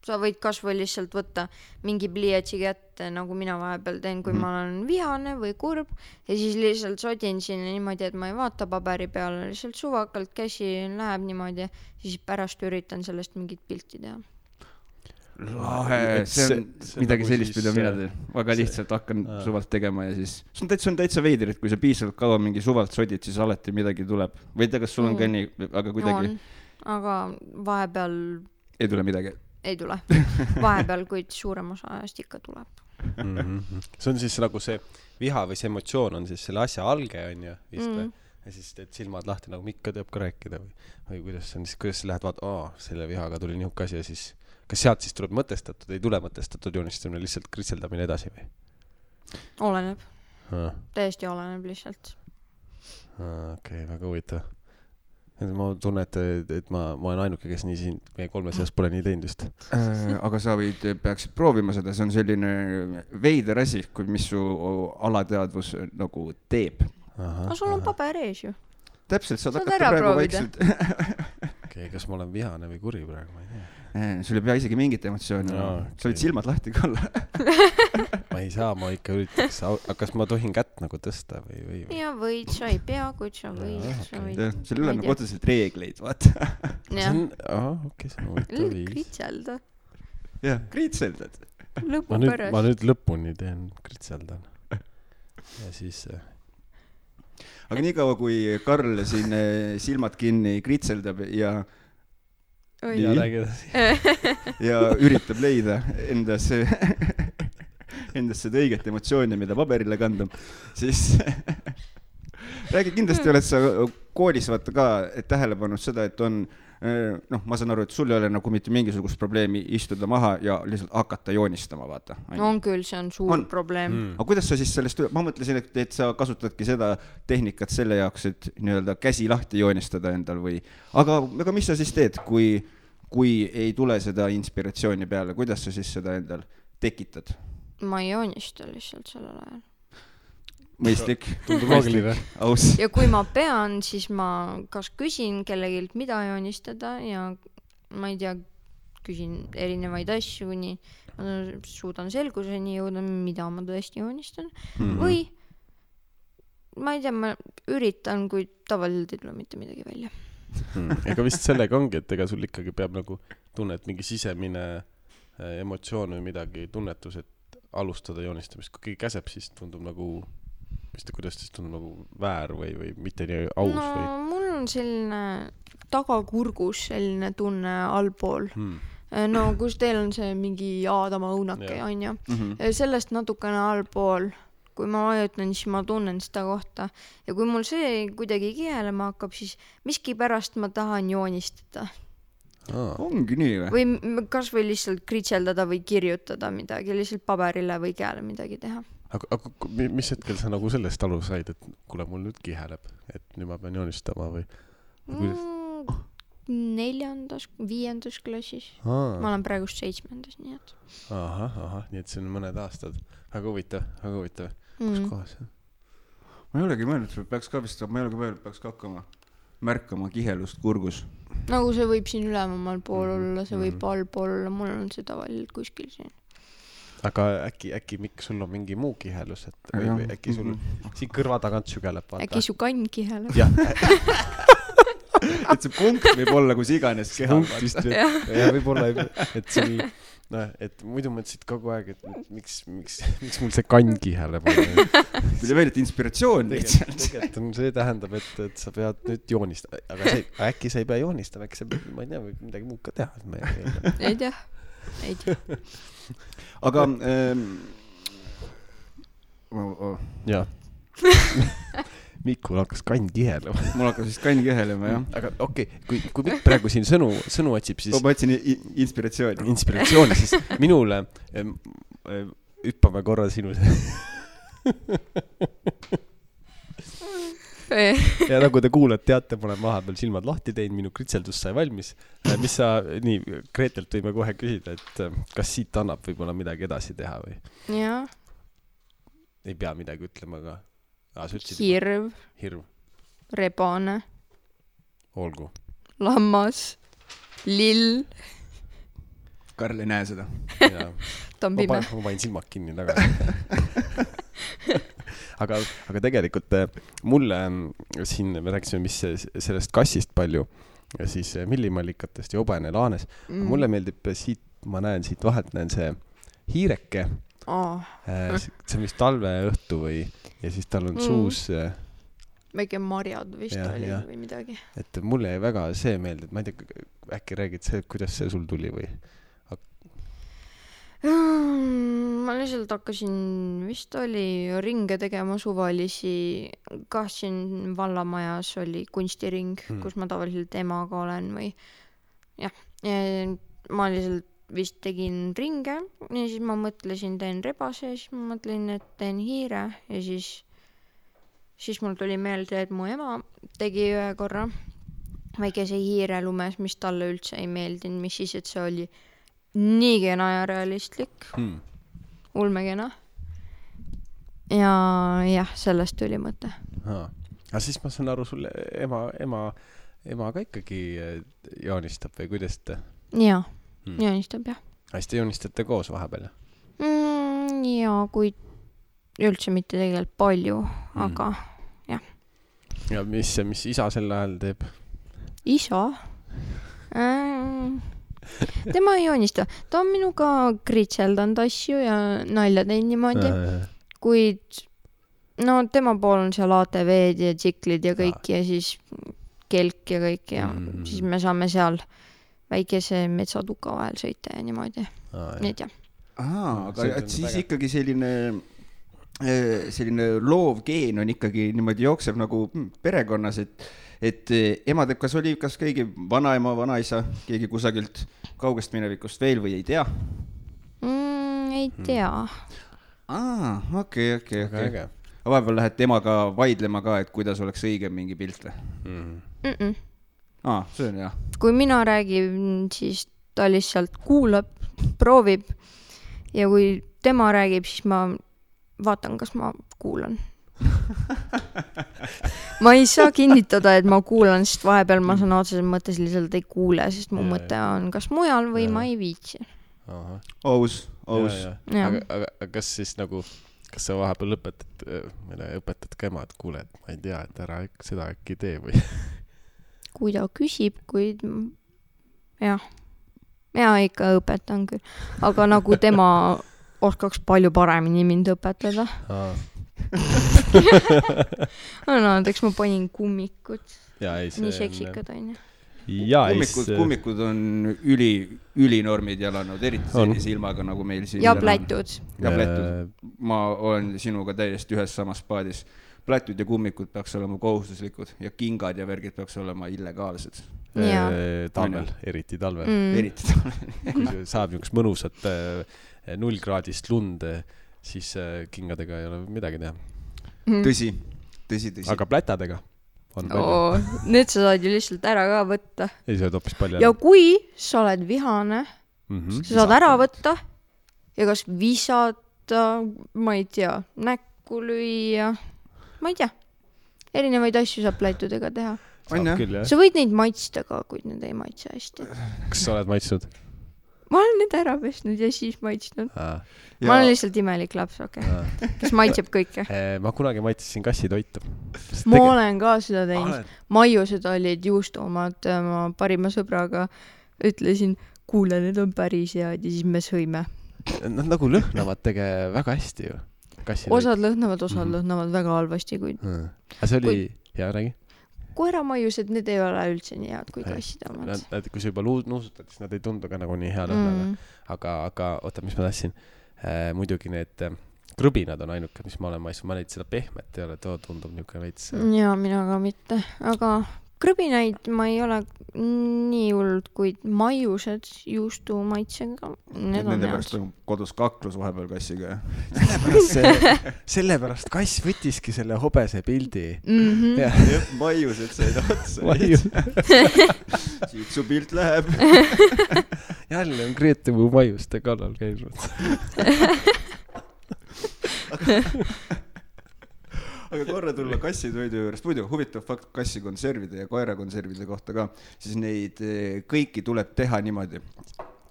sa võid kas või lihtsalt võtta mingi pliiatsi kätte, nagu mina vahepeal teen, kui ma olen vihane või kurb, ja siis lihtsalt sodin sinna niimoodi, et ma ei vaata paberi peale, lihtsalt suvakalt käsi läheb niimoodi, siis pärast üritan sellest mingit pilti teha. Lahe, see on midagi sellist, mida mina teen. Väga lihtsalt hakkan suvalt tegema ja siis see on täitsa veider, et kui sa piisavalt kaua mingi suvalt sodid, siis alati midagi tuleb. Või tea, kas sul on ka nii, aga kuidagi... Aga vahepeal... Ei tule midagi? Ei tule. Vahepeal, kuid suurem osa ajast ikka tuleb. See on siis nagu see viha või see emotsioon on siis selle asja alge, on ju, vist või? Ja siis teed silmad lahti, nagu Mikka teab ka rääkida või kuidas see on, siis kuidas sa lähed vaata, selle vihaga tuli nihuke asi ja siis kas sealt siis tuleb mõtestatud, ei tule mõtestatud joonistamine, lihtsalt kritseldamine edasi või? Oleneb. Täiesti oleneb lihtsalt. Okei, väga huvitav. Ma tunnen, et ma olen ainuke, kes nii siin meie kolme seas pole nii teinud just. Aga sa peaksid proovima seda, see on selline veider asi, mis su alateadvus nagu teeb. Aga sul on paber ees ju. Täpselt, saad hakata praegu vaikselt. Okei, kas ma olen vihane või kuri praegu, ma ei tea. Sul ei pea isegi mingit emotsiooni. Sa võid silmad lahti ka olla. Ma ei saa, ma ikka üritaks. Kas ma tohin kätt nagu tõsta või? Ja võid, sa ei pea, kuid sa võid. Sul ei ole nagu otseselt reegleid, vaata. Okei, see on huvitav viis. Kritselda. Jah, kritseldad. Lõpu pärast. Ma nüüd lõpuni teen kritseldan. Ja siis... Aga nii kaua, kui Karl siin silmad kinni kritseldab ja üritab leida endasse seda õiget emotsiooni, mida paberile kanda, siis räägi, kindlasti oled sa koolis vaata ka tähele pannud seda, et on ma saan aru, et sul ei ole nagu mitte mingisugust probleemi istuda maha ja lihtsalt hakata joonistama, vaata. On küll, see on suur probleem. Aga kuidas sa siis sellest, ma mõtlesin, et sa kasutadki seda tehnikat selle jaoks, et nii-öelda käsi lahti joonistada endal või, aga mis sa siis teed, kui ei tule seda inspiratsiooni peale, kuidas sa siis seda endal tekitad? Ma ei joonista lihtsalt sellel ajal. Mõistlik. Tundub loogiline. Ja kui ma pean, siis ma kas küsin kellegilt, mida joonistada ja ma ei tea, küsin erinevaid asju, nii ma suudan selguseni jõuda, mida ma tõesti joonistan. Või ma ei tea, ma üritan, kui tavaliselt ei tule mitte midagi välja. Ega vist sellega ongi, et ega sul ikkagi peab nagu tunnet mingi sisemine emotsioon või midagi tunnetus, et alustada joonistamist. Kui keegi käseb, siis tundub nagu kuidas siis tundub nagu väär või mitte nii aus või? Mul on selline tagakurgus selline tunne allpool. no kus teil on see mingi Aadama õunake, on ju. Sellest natukene allpool, kui ma vajutan, siis ma tunnen seda kohta. Ja kui mul see kuidagi kihelema hakkab, siis miski pärast ma tahan joonistada. Ongi nii või? Või kas või lihtsalt kritseldada või kirjutada midagi, lihtsalt paberile või käele midagi teha. Aga mis hetkel sa nagu sellest alu said, et kuule, mul nüüd kiheleb, et nüüd ma pean joonistama või? 4., 5. klassis. Ma olen praegust 7. nii et. Ahah, nii et see on mõned aastad. Väga huvitav. Kus kohas? Ma ei olegi mõelnud, peaks hakkama märkama kihelust kurgus. Nagu see võib siin ülemal pool olla, see võib allpool olla, mul on see tavaliselt kuskil siin. Aga äkki Mikk, sul on mingi muu kihelus, et või äkki sul siin kõrva tagant sügeleb, vaata. Äkki su kann kiheleb. Jah. Et see punkt võib olla kus iganes kehal. Ja võib-olla, et sul, et muidu mõtlesid kogu aeg, et miks mul see kann kiheleb. Tuli veel, et inspiratsioon lihtsalt. Tegelikult see tähendab, et sa pead nüüd joonistama. Aga äkki sa ei pea joonistama, äkki sa, ma ei tea, või midagi muud ka teha. Ei tea. Aga jah. Mikul hakkas kann kihelema. Mul hakkas siis kann kihelema, jah. Aga okei, kui Mikk praegu siin sõnu otsib, siis... Ma otsin inspiratsiooni. Inspiratsiooni, siis minule hüppame korra sinu... Ja nagu te kuuled, teate, ma olen vahepeal silmad lahti teinud, minu kritseldus sai valmis. Mis sa, nii, Greetelt võime kohe küsida, et kas siit annab võib-olla midagi edasi teha või? Jaa. Ei pea midagi ütlema, aga... Hirv. Rebane. Olgu. Lammas. Lill. Karl ei näe seda. Ta on pime. Ma panin silmad kinni tagasi. Aga tegelikult mulle siin, me rääkisime, mis sellest kassist palju, ja siis millimallikatest ja obene laanes. Mulle meeldib siit, ma näen siit vahelt, näen see hiireke. See on vist talve õhtu või, ja siis tal on suus väike marjad vist oli või midagi. Et mulle jäi väga see meelde, et ma ei tea, äkki räägid see, kuidas see sul tuli või? Ma lihtsalt hakkasin, vist oli ringe tegema suvalisi, siin vallamajas oli kunstiring, kus ma tavaliselt emaga olen või jah, ma lihtsalt vist tegin ringe ja siis ma mõtlesin, teen rebase ja siis ma mõtlesin, et teen hiire ja siis mul tuli meelde, et mu ema tegi ühe korra väikese hiire lumes, mis talle üldse ei meeldinud, mis siis, et see oli nii kena ja realistlik. Ulmekena. Ja jah, sellest tuli mõte. Aga siis ma saan aru, sulle ema ka ikkagi joonistab või kuidas te? Jaa, joonistab jah. Hästi joonistate koos vahepeal? Jaa, kui üldse mitte tegelikult palju, aga jah. Ja mis isa sel ajal teeb? Isa? Tema ei joonista. Ta on minuga kritseldanud asju ja nalja teinud niimoodi. Kuid tema pool on seal ATV-d ja tsiklid ja kõik ja siis kelk ja kõik ja siis me saame seal väikese metsatuka vahel sõita ja niimoodi. Need jah. Aga siis ikkagi selline loov geen on ikkagi niimoodi jookseb nagu perekonnas, et ema teeb, kas keegi vanaema, vanaisa, keegi kusagilt kaugest minevikust veel või ei tea? Ei tea. Okei. Aga vahepeal lähed temaga vaidlema ka, et kuidas oleks õige mingi pilt või? See on jah. Kui mina räägin, siis ta lihtsalt kuulab, proovib ja kui tema räägib, siis ma vaatan, kas ma kuulan. Ma ei saa kinnitada, et ma kuulan, sest vahepeal ma saan otseses mõttes lihtsalt ei kuule, sest mu mõte on kas mujal või ma ei viitsi. Aus. Aga kas siis nagu, kas sa vahepeal õpetad ka ema, et kuule, et ma ei tea, et ära seda äkki tee või? Kui ta küsib, kuid jah, ikka õpetan küll, aga nagu tema oskaks palju paremini mind õpetada. Näiteks ma panin kummikut. Nii seksikad on ju. ja kummikud on ülinormid jalanud, eriti sellise ilmaga nagu meil siin. Ja plätud. Ma olen sinuga täiesti ühes samas paadis. Plätud ja kummikud peaks olema kohustuslikud ja kingad ja värgid peaks olema illegaalsed. Talvel, eriti talvel. Eriti talvel. Kui saab niisugust mõnusat 0 kraadist lund, siis kingadega ei ole midagi teha. Tõsi. Aga plätadega on palju. Need sa saad ju lihtsalt ära ka võtta. Ei, sa oled hoopis palju. Ja kui sa oled vihane, sa saad ära võtta ja kas visata, ma ei tea, näkku lüüa, ma ei tea. Erinevaid asju saab plätudega teha. Sa võid neid maitsta ka, kuid need ei maitse hästi. Kas sa oled maitsnud? Ma olen need ära pesnud ja siis maitsnud. Ma olen lihtsalt imelik laps, kes maitseb kõike. Ma kunagi maitsesin kassitoitu. Ma olen ka seda teinud. Maiused olid juustumad, ma parima sõbraga ütlesin, kuule, need on päris head ja siis me sõime. Nad nagu lõhnavad väga hästi ju. Osad lõhnavad väga halvasti, kuid... See oli... Hea, räägi. Koeramaiused, need ei ole üldse nii head kui kasside omad. Kui sa juba nuusutad, siis nad ei tundu ka nagu nii hea lõhnaga. Aga oota, mis ma tahtsin? Muidugi need krõbinad on ainuke, mis ma olen maitsnud. Ma neid seda pehmet ei ole, tundub niisugune veits. Jaa, mina ka mitte. Aga krõbinaid ma ei ole nii hullud, kuid maiused juustu maitsega. Nende pärast on kodus kaklus vahepeal kassiga. Sellepärast kass võtiski selle hobese pildi. Maiused said otsa. Siit su pilt läheb. Jälle on Grete mu maiuste kallal käinud. Aga korra tulla kassitoidu juurest, muidu huvitav fakt kassi konservide ja koera konservide kohta ka, siis neid kõiki tuleb teha niimoodi.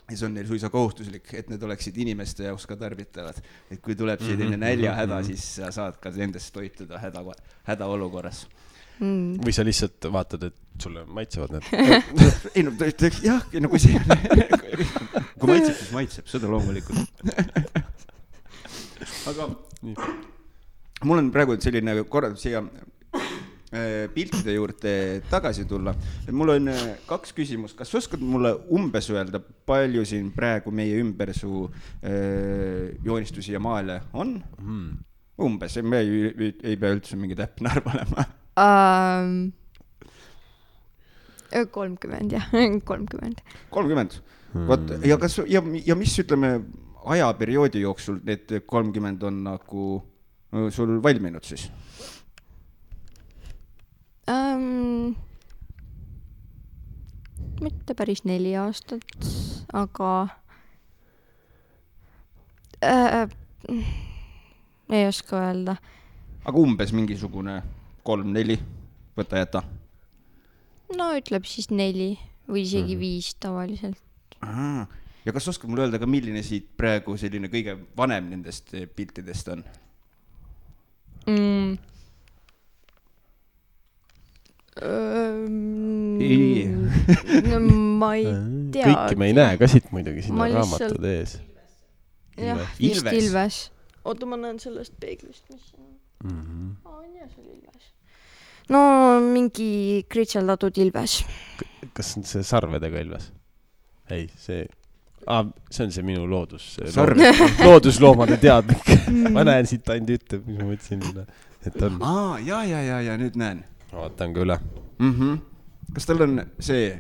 Ja see on neil suisa kohustuslik, et need oleksid inimeste jaoks ka tarbitavad. Et kui tuleb selline näljahäda, siis sa saad ka nendest toituda häda olukorras. Või sa lihtsalt vaatad, et sulle maitsevad need? Ei, no jah, no kui see kui maitseb, siis maitseb, seda loomulikult. Aga mul on praegu selline korraldus siia piltide juurde tagasi tulla. Mul on 2 küsimust. Kas oskad mulle umbes öelda, palju siin praegu meie ümber su joonistusi ja maale on? Umbes, me ei pea üldse mingi täpne arv olema. 30, jah, 30. 30? Ja mis ütleme ajaperioodi jooksul need 30 on nagu sul valminud siis? Mitte päris 4 aastat, aga ei oska öelda. Aga umbes mingisugune 3-4 võta jäta? No ütleb siis 4 või isegi 5 tavaliselt. Ja kas oskad mulle öelda ka, milline siit praegu selline kõige vanem nendest piltidest on? Ma ei tea. Kõiki me ei näe ka siit muidugi, siin on raamatud ees. Jah, vist Ilves. Oota, ma näen sellest peeglist, mis on. Ja see oli Ilves. No mingi kritseldatud Ilves. Kas on see sarvedega Ilves? Ei, see on see minu loodusloomade teadlik. Ma näen siit ainult ütleb, mis ma mõtlesin, et on. Ja, nüüd näen. Vaatan ka üle. Kas tal on see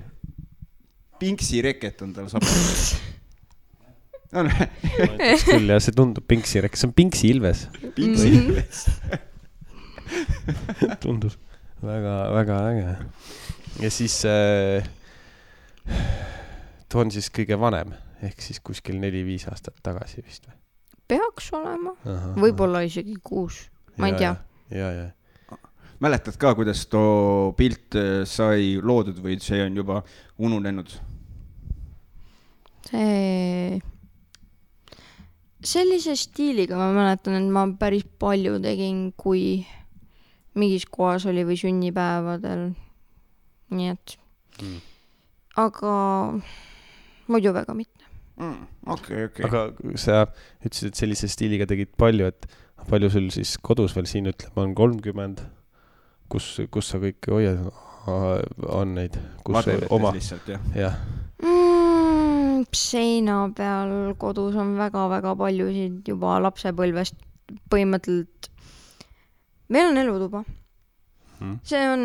Pinksi reket on tal sabas? Küll, ja see tundub Pinksi reket. See on Pinksi Ilves. Pinksi Ilves. Tundub väga, väga äge. Ja siis too on siis kõige vanem. Ehk siis kuskil 4-5 aastat tagasi vist või? Peaks olema. Võib-olla isegi 6. Ma ei tea. Ja. Mäletad ka, kuidas too pilt sai loodud või see on juba ununenud? Sellise stiiliga ma mäletan, et ma päris palju tegin, kui mingis kohas oli või sünnipäevadel. Nii et. Aga muidu väga mitte. Okay. Aga sa ütlesid, et sellise stiiliga tegid palju, et palju sul siis kodus veel siin ütleb, on 30, kus sa kõike hoiad? on neid, kus Madurites oma lihtsalt, jah. jah. Seina peal kodus on väga-väga paljusid juba lapsepõlvest põhimõtteliselt. Meil on elutuba. See on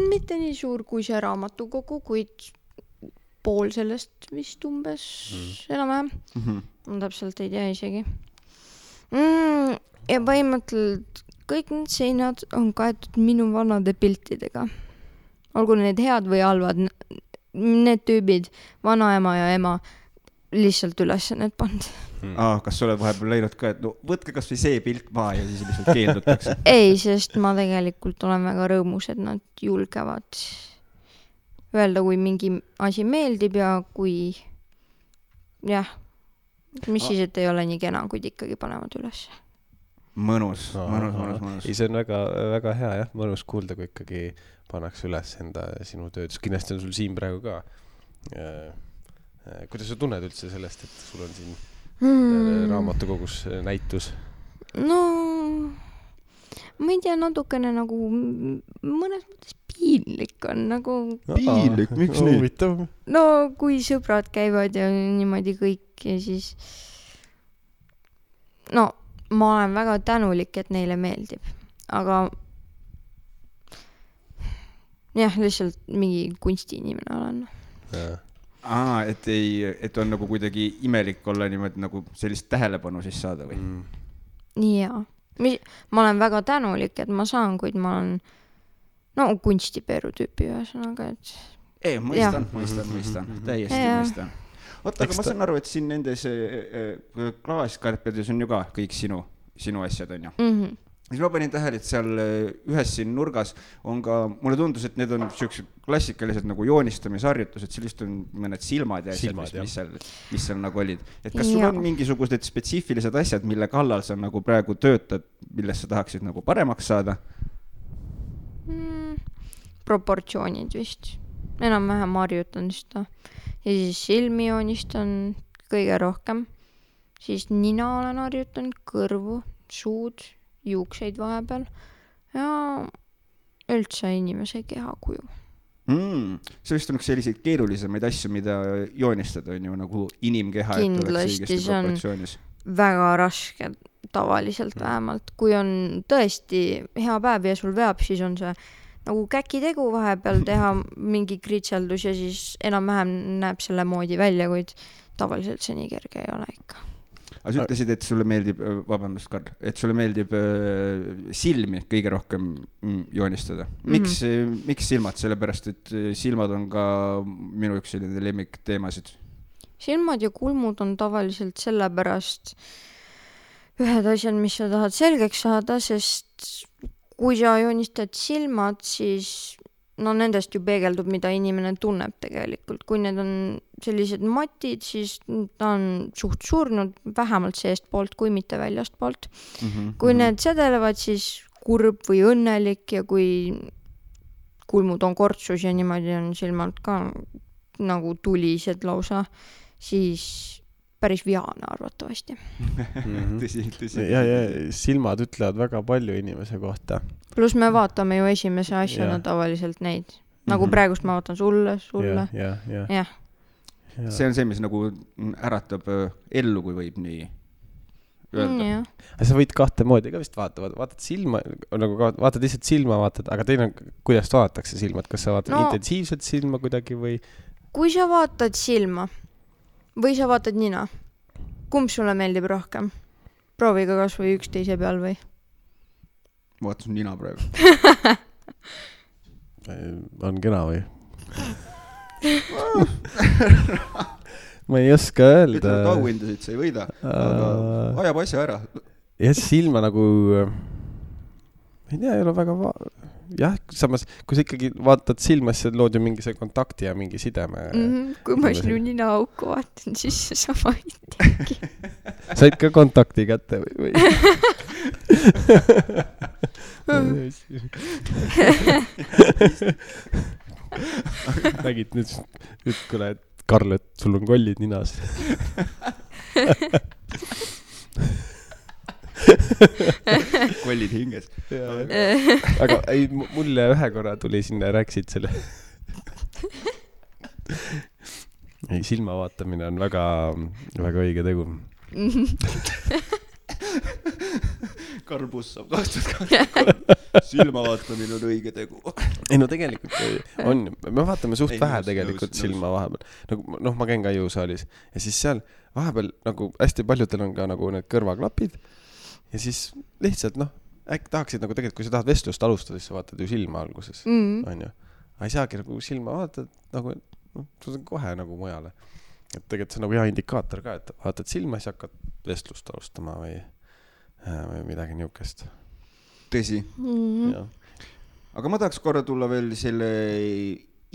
mitte nii suur kui see raamatukogu, kuid pool sellest vist umbes enam-vähem. Ma täpselt ei tea isegi. Ja põhimõtteliselt kõik need seinad on kaetud minu vanade piltidega. Olgu need head või halvad, need tüübid, vanaema ja ema, lihtsalt üles need pand. Kas sa oled vahepeal läinud ka, et no võtke kas või see pilt maa ja siis lihtsalt keeldutakse? Ei, sest ma tegelikult olen väga rõõmus, et nad julgevad öelda, kui mingi asi meeldib ja kui jah, mis siis, et ei ole nii kena, kuid ikkagi panevad üles. Mõnus. Ei, see on väga, väga hea, jah, mõnus kuulda, kui ikkagi pannakse üles enda sinu tööd. Kindlasti on sul siin praegu ka. Kuidas sa tunned üldse sellest, et sul on siin raamatukogus näitus? No, ma ei tea, natukene nagu mõnes mõttes piinlik on nagu... Piinlik? Miks nüüd? No, kui sõbrad käivad ja niimoodi kõik ja siis... No, ma olen väga tänulik, et neile meeldib. Aga jah, lihtsalt mingi kunstiinimene olen. Et on nagu kuidagi imelik olla niimoodi nagu sellist tähelepanu siis saada või? Jaa. Ma olen väga tänulik, et ma saan, kuid ma olen kunstipeeru tüüpi ühesõnaga, et... Ei, mõistan. Täiesti mõistan. Oota, aga ma saan aru, et siin nendes klaaskarpedes on ju ka kõik sinu asjad, on ju? Siis ma panin tähele, et seal ühes siin nurgas on ka, mulle tundus, et need on sellised klassikalised nagu joonistamisharjutused, sellist on mõned silmad ja asjad, mis seal nagu olid. Et kas sul on mingisugused spetsiifilised asjad, mille kallal sa nagu praegu töötad, millest sa tahaksid nagu paremaks saada? Proportsioonid vist. Enam-vähem harjutan seda. Ja siis silmi joonistan kõige rohkem. Siis nina olen harjutan, kõrvu, suud, juukseid vahepeal ja üldse inimese kehakuju. See vist on üks selliseid keerulisemaid asju, mida joonistada on ju nagu inimkeha. Kindlasti see on väga raske tavaliselt vähemalt. Kui on tõesti hea päev ja sul veab, siis on see nagu käkitegu vahepeal teha mingi kritseldus ja siis enam-vähem näeb selle moodi välja, kuid tavaliselt see nii kerge ei ole ikka. Aga sa ütlesid, et sulle meeldib, vabandust, Karl, et sulle meeldib silmi kõige rohkem joonistada. Miks silmad? Sellepärast, et silmad on ka minu üks selline lemmik teemasid. Silmad ja kulmud on tavaliselt sellepärast ühed asjad, mis sa tahad selgeks saada, sest kui sa joonistad silmad, siis nendest ju peegeldub, mida inimene tunneb tegelikult. Kui need on sellised matid, siis ta on suht surnud vähemalt seest poolt, kui mitte väljast poolt. Kui need sedelevad, siis kurb või õnnelik ja kui kulmud on kortsus ja niimoodi on silmalt ka nagu tulised lausa, siis päris vihane arvatavasti. Tõsi. Ja silmad ütlevad väga palju inimese kohta. Plus me vaatame ju esimese asjana tavaliselt neid. Nagu praegust ma vaatan sulle. Ja. See on see, mis nagu äratab ellu, kui võib nii öelda. Sa võid kahte moodi ka vist vaatad silma, nagu vaatad lihtsalt silma, aga teine on, kuidas vaadatakse silmad, kas sa vaatad intensiivselt silma kuidagi või? Kui sa vaatad silma või sa vaatad nina, kumb sulle meeldib rohkem? Prooviga kas või üksteise peal või? Vaatasin nina praegu. On kena või? Ma ei oska öelda. Ütleme, et auhindasid sa ei võida, aga ajab asja ära. Ja silma nagu, ei tea, ei ole väga jah, samas, kui sa ikkagi vaatad silma, siis lood ju mingi see kontakti ja mingi sideme. Kui ma sinu nina auku vaatan, siis sama ei tegi. Said ka kontakti kätte või? Nägid nüüd, kuule, et Karl, et sul on kollid ninas. kollid hinges. Aga ei, mulle ühe korra tuli sinna, rääkisid selle. Ei, silma vaatamine on väga, väga õige tegu. Karbus saab 2023. Silma vaatamine on õige tegu. Ei no tegelikult on, me vaatame suht vähe tegelikult silma vahepeal. Nagu, ma käin ka jõusaalis ja siis seal vahepeal nagu hästi paljudel on ka nagu need kõrvaklapid ja siis lihtsalt äkki tahaksid nagu tegelikult, kui sa tahad vestlust alustada, siis sa vaatad ju silma alguses, on ju. Ei saagi nagu silma vaatad nagu, sa on kohe nagu mujale. Et tegelikult see on nagu hea indikaator ka, et vaatad silma, siis hakkad vestlust alustama või midagi niukest. Tõsi. Aga ma tahaks korra tulla veel selle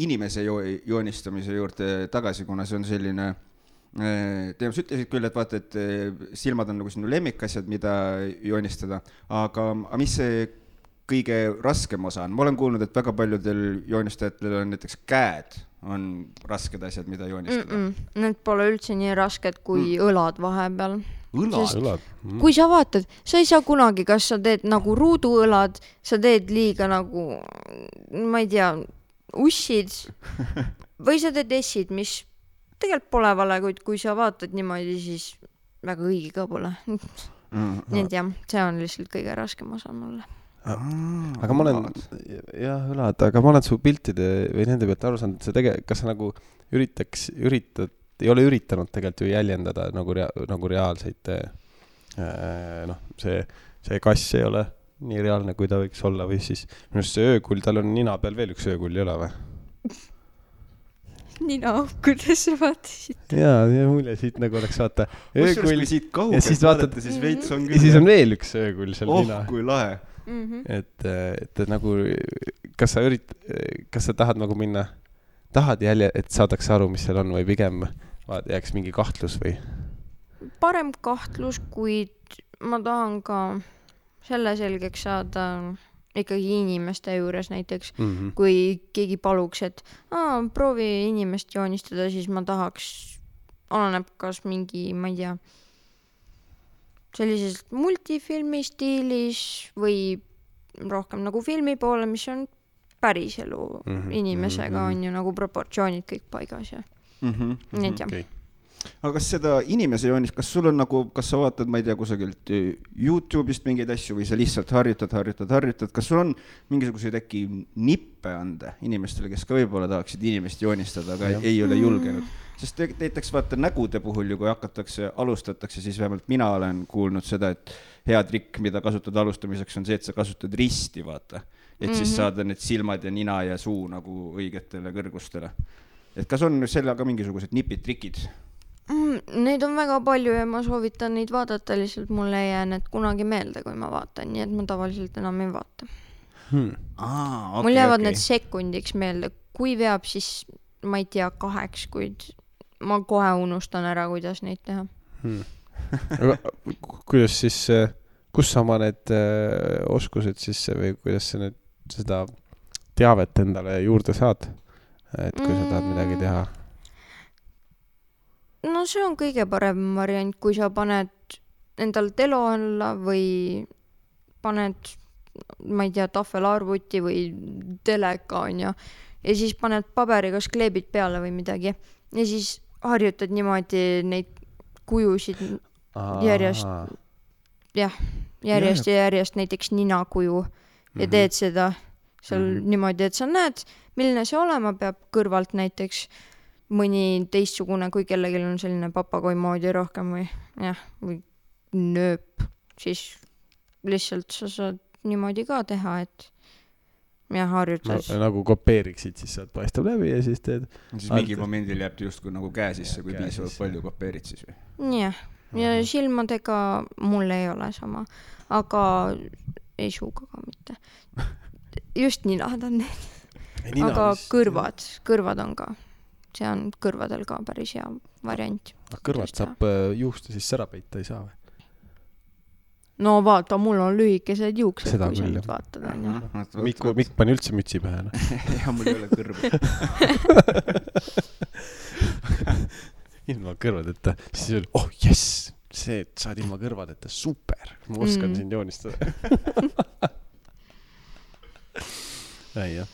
inimese joonistamise juurde tagasi, kuna see on selline teema, sa ütlesid küll, et vaata, et silmad on nagu sinu lemmikasjad, mida joonistada, aga mis see kõige raskem osa on? Ma olen kuulnud, et väga paljudel joonistajatel on näiteks käed on rasked asjad, mida joonistada. Need pole üldse nii rasked kui õlad vahepeal. Õlad. Kui sa vaatad, sa ei saa kunagi, kas sa teed nagu ruuduõlad, sa teed liiga nagu, ma ei tea, ussid või sa teed essid, mis tegelikult pole vale, kuid kui sa vaatad niimoodi, siis väga õige ka pole. Nii et jah, see on lihtsalt kõige raskem osa mulle. Aga ma olen, jah, õlad, aga ma olen su piltide või nende pealt aru saanud, kas sa nagu ei ole üritanud tegelikult ju jäljendada nagu reaalseid, see kass ei ole nii reaalne, kui ta võiks olla, või siis minu see öökull, tal on nina peal veel üks öökull, ei ole või? Nina, kuidas sa vaatasid? Jaa, mulje siit nagu oleks vaata öökull ja siis vaatad, ja siis on veel üks öökull seal nina. Kui lahe. Et nagu, kas sa tahad nagu minna, et saadaks aru, mis seal on, või pigem jääks mingi kahtlus või? Parem kahtlus, kuid ma tahan ka selle selgeks saada ikkagi inimeste juures näiteks, kui keegi paluks, et proovi inimest joonistada, siis ma tahaks, oleneb kas mingi, ma ei tea, sellises multifilmi stiilis või rohkem nagu filmi poole, mis on päris elu inimesega, on ju nagu proportsioonid kõik paigas ja nii et jah. Okay. Aga kas seda inimese joonist, kas sul on nagu, kas sa vaatad, ma ei tea, kusagilt YouTube'ist mingeid asju või sa lihtsalt harjutad, kas sul on mingisuguseid äkki nippe anda inimestele, kes ka võib-olla tahaksid inimest joonistada, aga ei ole julgenud? Sest näiteks vaata nägude puhul ju, kui alustatakse, siis vähemalt mina olen kuulnud seda, et hea trikk, mida kasutad alustamiseks, on see, et sa kasutad risti, vaata. Et siis saada need silmad ja nina ja suu nagu õigetele kõrgustele. Et kas on sellega mingisugused nipid, trikid? Neid on väga palju ja ma soovitan neid vaadata, lihtsalt mulle ei jää need kunagi meelde, kui ma vaatan, nii et ma tavaliselt enam ei vaata. Mul jäävad need sekundiks meelde, kui veab, siis ma ei tea 8, kuid ma kohe unustan ära, kuidas neid teha. Aga kuidas siis, kus sa oma need oskused siis või kuidas sa nüüd seda teavet endale juurde saad, et kui sa tahad midagi teha? No see on kõige parem variant, kui sa paned endal telo alla või paned, ma ei tea, tahvelarvuti või teleka on ja siis paned paberiga kleebid peale või midagi ja siis harjutad niimoodi neid kujusid järjest ja järjest näiteks ninakuju ja teed seda seal niimoodi, et sa näed, milline see olema peab kõrvalt näiteks mõni teistsugune, kui kellelgi on selline papagoi moodi rohkem või nööp, siis lihtsalt sa saad niimoodi ka teha, et harjutad. Nagu kopeeriksid, siis saad paistab läbi ja siis teed. Siis mingi momendil jääb justkui nagu käe sisse, kui piisavalt palju kopeerid siis või? Jah, ja silmadega mul ei ole sama, aga ei suuga ka mitte. Just ninad on need. Aga kõrvad on ka. See on kõrvadel ka päris hea variant. Kõrvad saab juusta siis sära peita, ei saa või? No vaata, mul on lühikesed juuksed, seda kui sa nüüd vaatad. Mikk pani üldse mütsi pähe. Ja mul ei ole kõrva. Ilma kõrvadeta. Siis oli, jess, see, et saad ilma kõrvadeta, super, ma oskan sind joonistada. Ei, jah.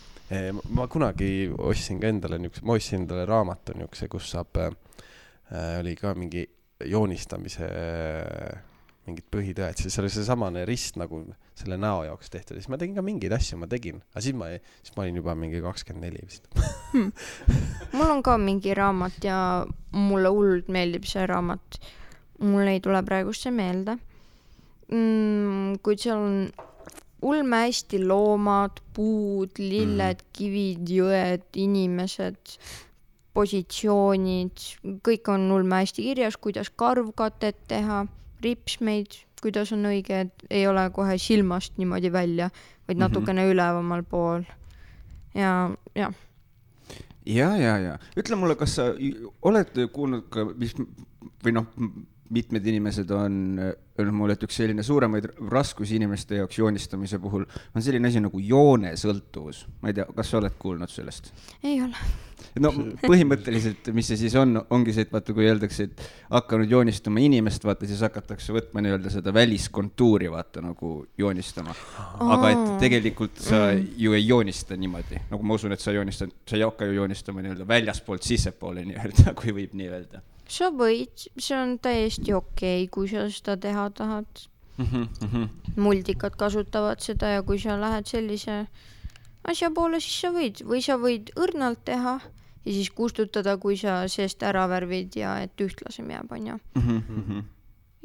Ma kunagi ostsin ka endale raamatu niukse, kus saab, oli ka mingi joonistamise mingid põhitõed, siis oli see samane rist nagu selle näo jaoks tehtud, siis ma tegin ka mingeid asju, aga siis ma olin juba mingi 24 vist. Mul on ka mingi raamat ja mulle hullult meeldib see raamat. Mul ei tule praegust see meelde. Kuid seal on ulme hästi loomad, puud, lilled, kivid, jõed, inimesed, positsioonid, kõik on ulme hästi kirjas, kuidas karvkatet teha, ripsmeid, kuidas on õige, et ei ole kohe silmast niimoodi välja, vaid natukene ülevamal pool. Ja. Ütle mulle, kas sa oled kuulnud ka, või mitmed inimesed on öelnud mulle, et üks selline suuremaid raskusi inimeste jaoks joonistamise puhul on selline asi nagu joonesõltuvus. Ma ei tea, kas sa oled kuulnud sellest? Ei ole. No põhimõtteliselt, mis see siis ongi see, et vaata, kui öeldakse, et hakanud joonistama inimest, vaata, siis hakatakse võtma nii-öelda seda väliskontuuri, vaata, nagu joonistama. Aga et tegelikult sa ju ei joonista niimoodi. Nagu ma usun, et sa ei hakka ju joonistama nii-öelda väljaspoolt sissepoole nii-öelda, kui võib nii öelda. Sa võid, see on täiesti okei, kui sa seda teha tahad. Muldikad kasutavad seda ja kui sa lähed sellise asja poole, siis sa võid. Või sa võid õrnalt teha ja siis kustutada, kui sa seest ära värvid ja et ühtlasem jääb, on ju.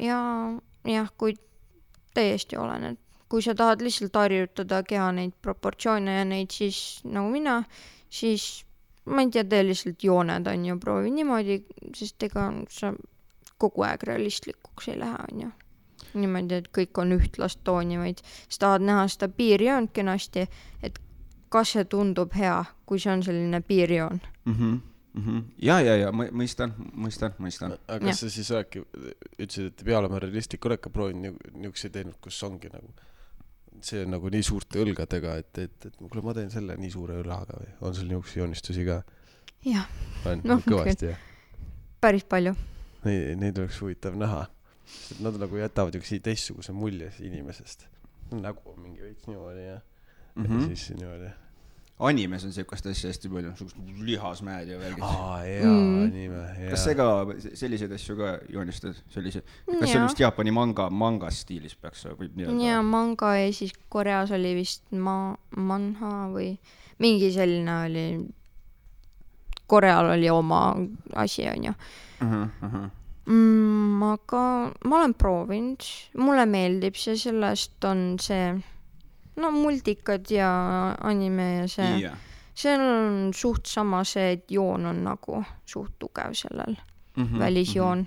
Ja kui täiesti olen, et kui sa tahad lihtsalt harjutada keha neid proportsioone ja neid siis nagu mina, siis ma ei tea, tee lihtsalt jooned, on ju, proovi niimoodi, sest ega sa kogu aeg realistlikuks ei lähe, on ju. Niimoodi, et kõik on ühtlast tooni, vaid sa tahad näha seda piirjoont kenasti, et kas see tundub hea, kui see on selline piirjoon. Ja, mõistan. Aga kas sa siis ütlesid, et peale oma realistlik oled ka proovinud niisuguse teinud, kus ongi nagu see on nagu nii suurte õlgadega, et kuule, ma teen selle nii suure õlaga või on sul niisuguse joonistusi ka? Jah. On kõvasti, jah? Päris palju. Neid oleks huvitav näha. Nad nagu jätavad üks teistsuguse mulje inimesest. Nägu on mingi veits niimoodi ja siis niimoodi. Animes on sellist asja hästi palju, lihasmäed ja värgid. Anime. Kas see ka selliseid asju ka joonistad? Kas see on vist Jaapani manga stiilis peaks võib nii öelda? Ja manga ja siis Koreas oli vist manha või mingi selline oli. Koreal oli oma asi, on ju. Aga ma olen proovinud. Mulle meeldib see, sellest on see multikad ja anime ja see. See on suht sama see, et joon on nagu suht tugev sellel välisjoon.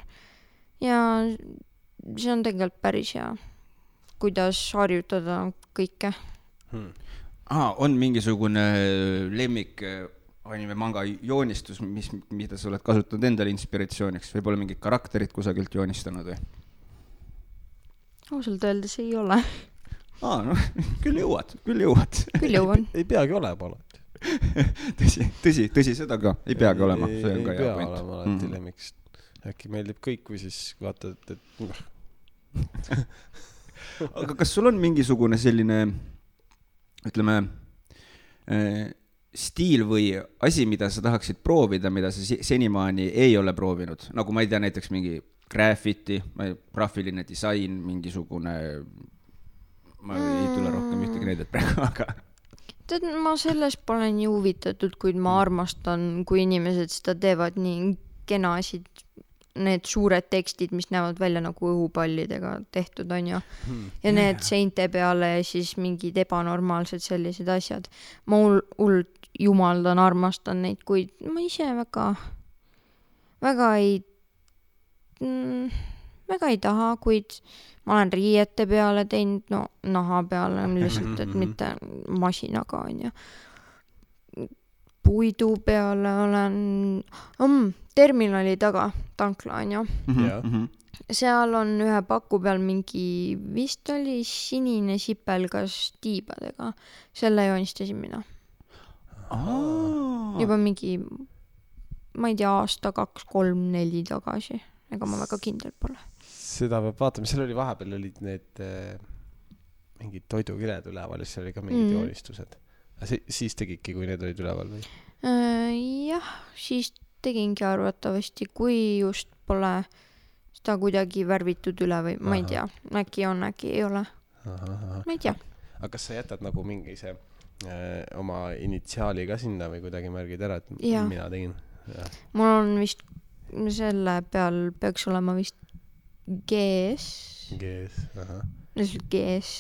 Ja see on tegelikult päris hea, kuidas harjutada kõike. On mingisugune lemmik anime manga joonistus, mida sa oled kasutanud endale inspiratsiooniks? Võib-olla mingid karakterid kusagilt joonistanud või? Ausalt öeldes ei ole. Küll jõuad. Küll jõuan. Ei peagi olema alati. Tõsi seda ka. Ei peagi olema. See on ka hea point. Ei pea olema alati lemmiks. Äkki meeldib kõik või siis vaatad, et Aga kas sul on mingisugune selline, ütleme, stiil või asi, mida sa tahaksid proovida, mida sa senimaani ei ole proovinud? Nagu ma ei tea, näiteks mingi graffiti, graafiline disain, mingisugune... Ma ei tule rohkem ühtegi näidet praegu, aga... Tead, ma sellest pole nii huvitatud, kuid ma armastan, kui inimesed seda teevad nii kenasid, need suured tekstid, mis näevad välja nagu õhupallidega tehtud, on ju. Ja need seinte peale ja siis mingid ebanormaalsed sellised asjad. Ma hullult jumaldan, armastan neid, kuid ma ise väga ei taha, kuid ma olen riiete peale teinud, naha peale lihtsalt, et mitte masinaga, on ju. Puidu peale olen terminali taga, tankla, on ju. Seal on ühe paku peal mingi, vist oli sinine sipelgas tiibadega. Selle joonistasin mina. Juba mingi, ma ei tea, aasta 2, 3, 4 tagasi. Ega ma väga kindel pole. seda peab vaatama, seal oli vahepeal olid need mingid toidukiled üleval ja seal oli ka mingid joonistused. Siis tegidki, kui need olid üleval või? Jah, siis tegingi arvatavasti, kui just pole seda kuidagi värvitud üle või ma ei tea, äkki on, äkki ei ole. Ma ei tea. Aga kas sa jätad nagu mingi see oma initsiaali ka sinna või kuidagi märgid ära, et mina tegin? Mul on vist selle peal peaks olema vist GS,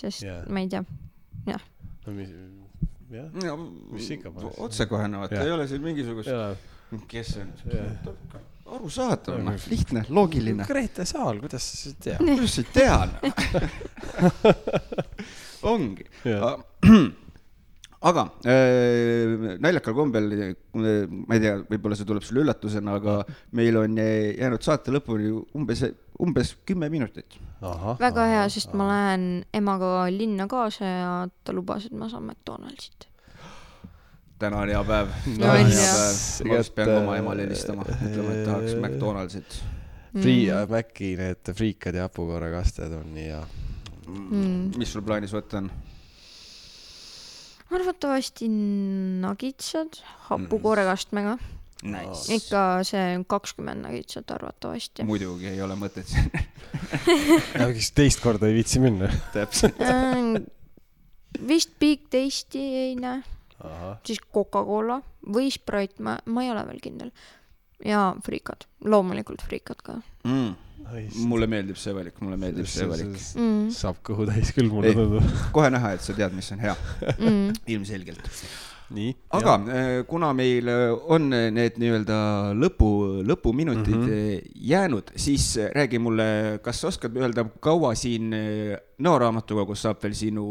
sest ma ei tea. Jah. Mis ikka panes? Otsekohene, vaata, ei ole siin mingisugust... Kes on? Aru saada, lihtne, loogiline. Grete Saal, kuidas sa tead? Kuidas sa tead? Ongi. Aga naljakal kombel, ma ei tea, võib-olla see tuleb sulle üllatusena, aga meil on jäänud saate lõpuni umbes 10 minutit. Väga hea, sest ma lähen emaga linna kaasa ja ta lubas, et ma saan McDonaldsit. Täna on hea päev. Ma just pean oma emale helistama. Ütlema, et tahaks McDonaldsit. Maci need friikad ja hapukoorrekasted on nii hea. Mis sul plaanis võtta on? Arvatavasti nagitsad hapukoorrekastmega. Nice. Ikka see 20 nagitsad arvatavasti. Muidugi ei ole mõtet siin. Teist korda ei viitsi minna. Täpselt. Vist Big Tasty ei näe. Siis Coca-Cola või Sprite, ma ei ole veel kindel. Ja friikad, loomulikult friikad ka. Mulle meeldib see valik, Saab kõhu täis küll, mulle tundub. Kohe näha, et sa tead, mis on hea. Ilmselgelt. Nii, aga kuna meil on need nii-öelda lõpuminutid jäänud, siis räägi mulle, kas sa oskad öelda, kaua siin Nõoraamatukogus saab veel sinu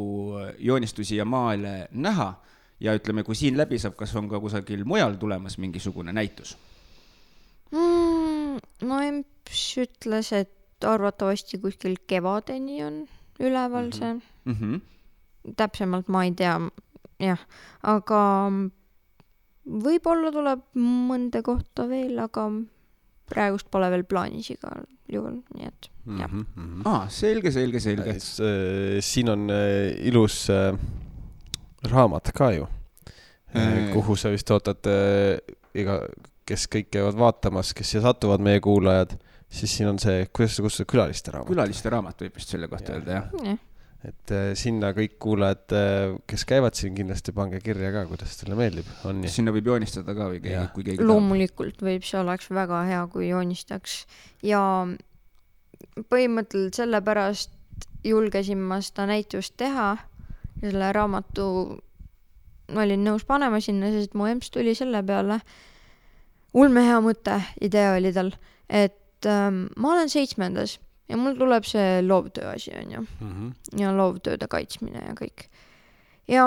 joonistusi ja maale näha? Ja ütleme, kui siin läbi saab, kas on ka kusagil mujal tulemas mingisugune näitus? No Emps ütles, et arvatavasti kuskil kevadeni on üleval see. Täpsemalt ma ei tea, jah. Aga võib-olla tuleb mõnda kohta veel, aga praegust pole veel plaanis igal juhul, nii et jah. Selge. Siin on ilus... raamat ka ju, kuhu sa vist ootad, kes kõik käivad vaatamas, kes siia satuvad meie kuulajad, siis siin on see, kuidas sa kustad külaliste raamat? Külaliste raamat võib just selle kohta öelda, jah. Et sinna kõik kuulajad, kes käivad siin, kindlasti pange kirja ka, kuidas teile meeldib. On nii? Sinna võib joonistada ka või kui keegi loomulikult võib, see oleks väga hea, kui joonistaks. Ja põhimõtteliselt sellepärast julgesin ma seda näitust teha ja selle raamatu olin nõus panema sinna, sest mu emps tuli selle peale. Ulmehea mõte, idee oli tal, et ma olen 7. ja mul tuleb see loovtöö asi on ju. Ja loovtööde kaitsmine ja kõik. Ja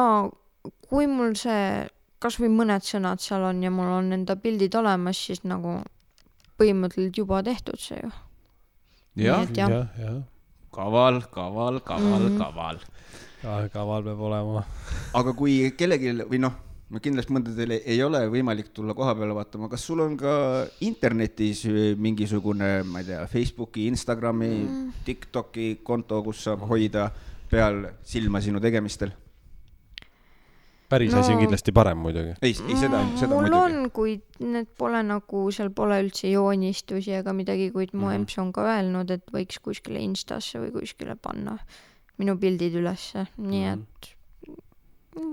kui mul see, kas või mõned sõnad seal on ja mul on enda pildid olemas, siis nagu põhimõtteliselt juba tehtud see ju. Ja. Kaval. Kaval peab olema. Aga kui kellelgi, või kindlasti mõndadel ei ole võimalik tulla koha peale vaatama, kas sul on ka internetis mingisugune, ma ei tea, Facebooki, Instagrami, TikToki konto, kus saab hoida peal silma sinu tegemistel? Päris asi on kindlasti parem muidugi. Ei seda mul muidugi. On, kuid need pole nagu, seal pole üldse joonistusi ega midagi, kuid mu emps on ka öelnud, et võiks kuskile Instasse või kuskile panna minu pildid ülesse, nii et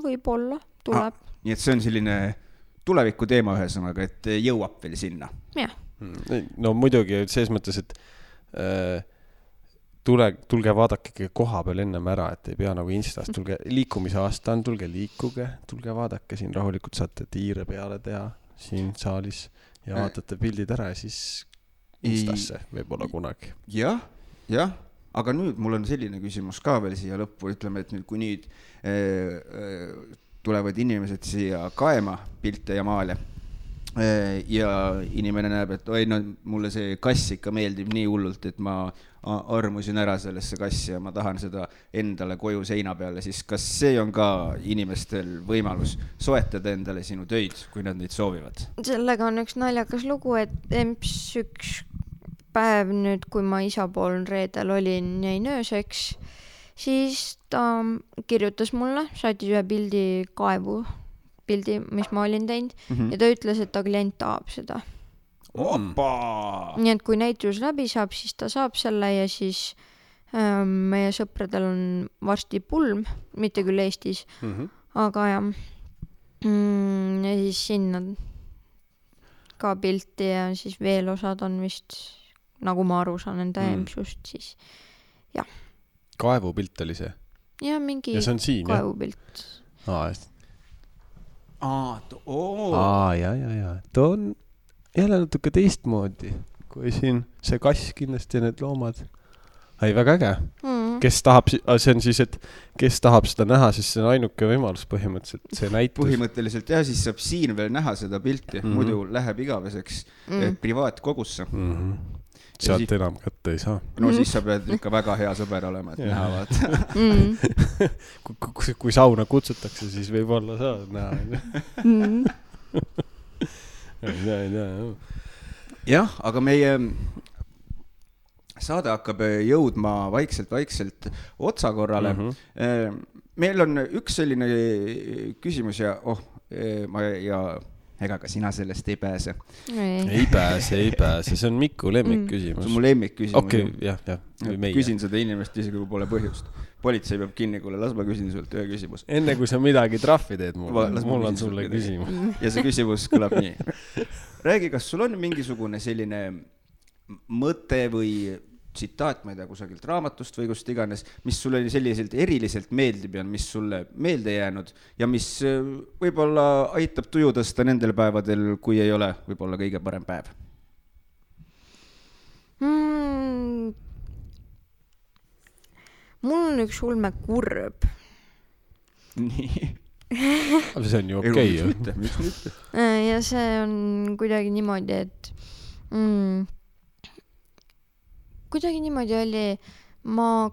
võib-olla tuleb. Nii et see on selline tuleviku teema ühesõnaga, et jõuab veel sinna. Jah. No muidugi, selles mõttes, et tulge vaadake koha peal ennem ära, et ei pea nagu Instast, tulge liikumise aasta on, tulge liikuge, tulge vaadake siin rahulikult, saate tiire peale teha siin saalis ja vaatate pildid ära ja siis Instasse võib-olla kunagi. Jah. Aga nüüd mul on selline küsimus ka veel siia lõppu, ütleme, et nüüd kui nüüd tulevad inimesed siia kaema pilte ja maale ja inimene näeb, et mulle see kass ikka meeldib nii hullult, et ma armusin ära sellesse kassi ja ma tahan seda endale koju seina peale, siis kas see on ka inimestel võimalus soetada endale sinu töid, kui nad neid soovivad? Sellega on üks naljakas lugu, et emps üks päev nüüd, kui ma isa pool reedel olin, jäin ööseks, siis ta kirjutas mulle, saatis ühe pildi, mis ma olin teinud ja ta ütles, et ta klient tahab seda. Opa! Nii et kui näitus läbi saab, siis ta saab selle ja siis meie sõpradel on varsti pulm, mitte küll Eestis, aga jah. Ja siis sinna ka pilti ja siis veel osad on vist, nagu ma aru saan enda EMS-ust, siis jah. Kaevupilt oli see? Ja mingi ja see on siin, kaevupilt. Ja. Ta on jälle natuke teistmoodi, kui siin see kass kindlasti ja need loomad. Väga äge. Kes tahab, see on siis, et kes tahab seda näha, siis see on ainuke võimalus põhimõtteliselt, see näitus. Põhimõtteliselt jah, siis saab siin veel näha seda pilti, muidu läheb igaveseks privaatkogusse. Sealt enam kätte ei saa. No siis sa pead ikka väga hea sõber olema, et näha vaata. Kui sauna kutsutakse, siis võib olla saad näha. Jah, aga meie saade hakkab jõudma vaikselt otsakorrale. Meil on üks selline küsimus ja ega ka sina sellest ei pääse. Ei pääse. See on Miku lemmikküsimus. See on mu lemmikküsimus. Okei, jah. Küsin seda inimest isegi, kui pole põhjust. Politsei peab kinni, kuule, las ma küsin sult ühe küsimus. Enne kui sa midagi trahvi teed, mul on sulle küsimus. Ja see küsimus kõlab nii. Räägi, kas sul on mingisugune selline mõte või tsitaat, ma ei tea, kusagilt raamatust või kust iganes, mis sulle selliselt eriliselt meeldib ja mis sulle meelde jäänud ja mis võib-olla aitab tuju tõsta nendel päevadel, kui ei ole võib-olla kõige parem päev? Mul on üks ulme kurb. Nii. Aga see on ju okei. Miks mitte? Ja see on kuidagi niimoodi, et kuidagi niimoodi oli, ma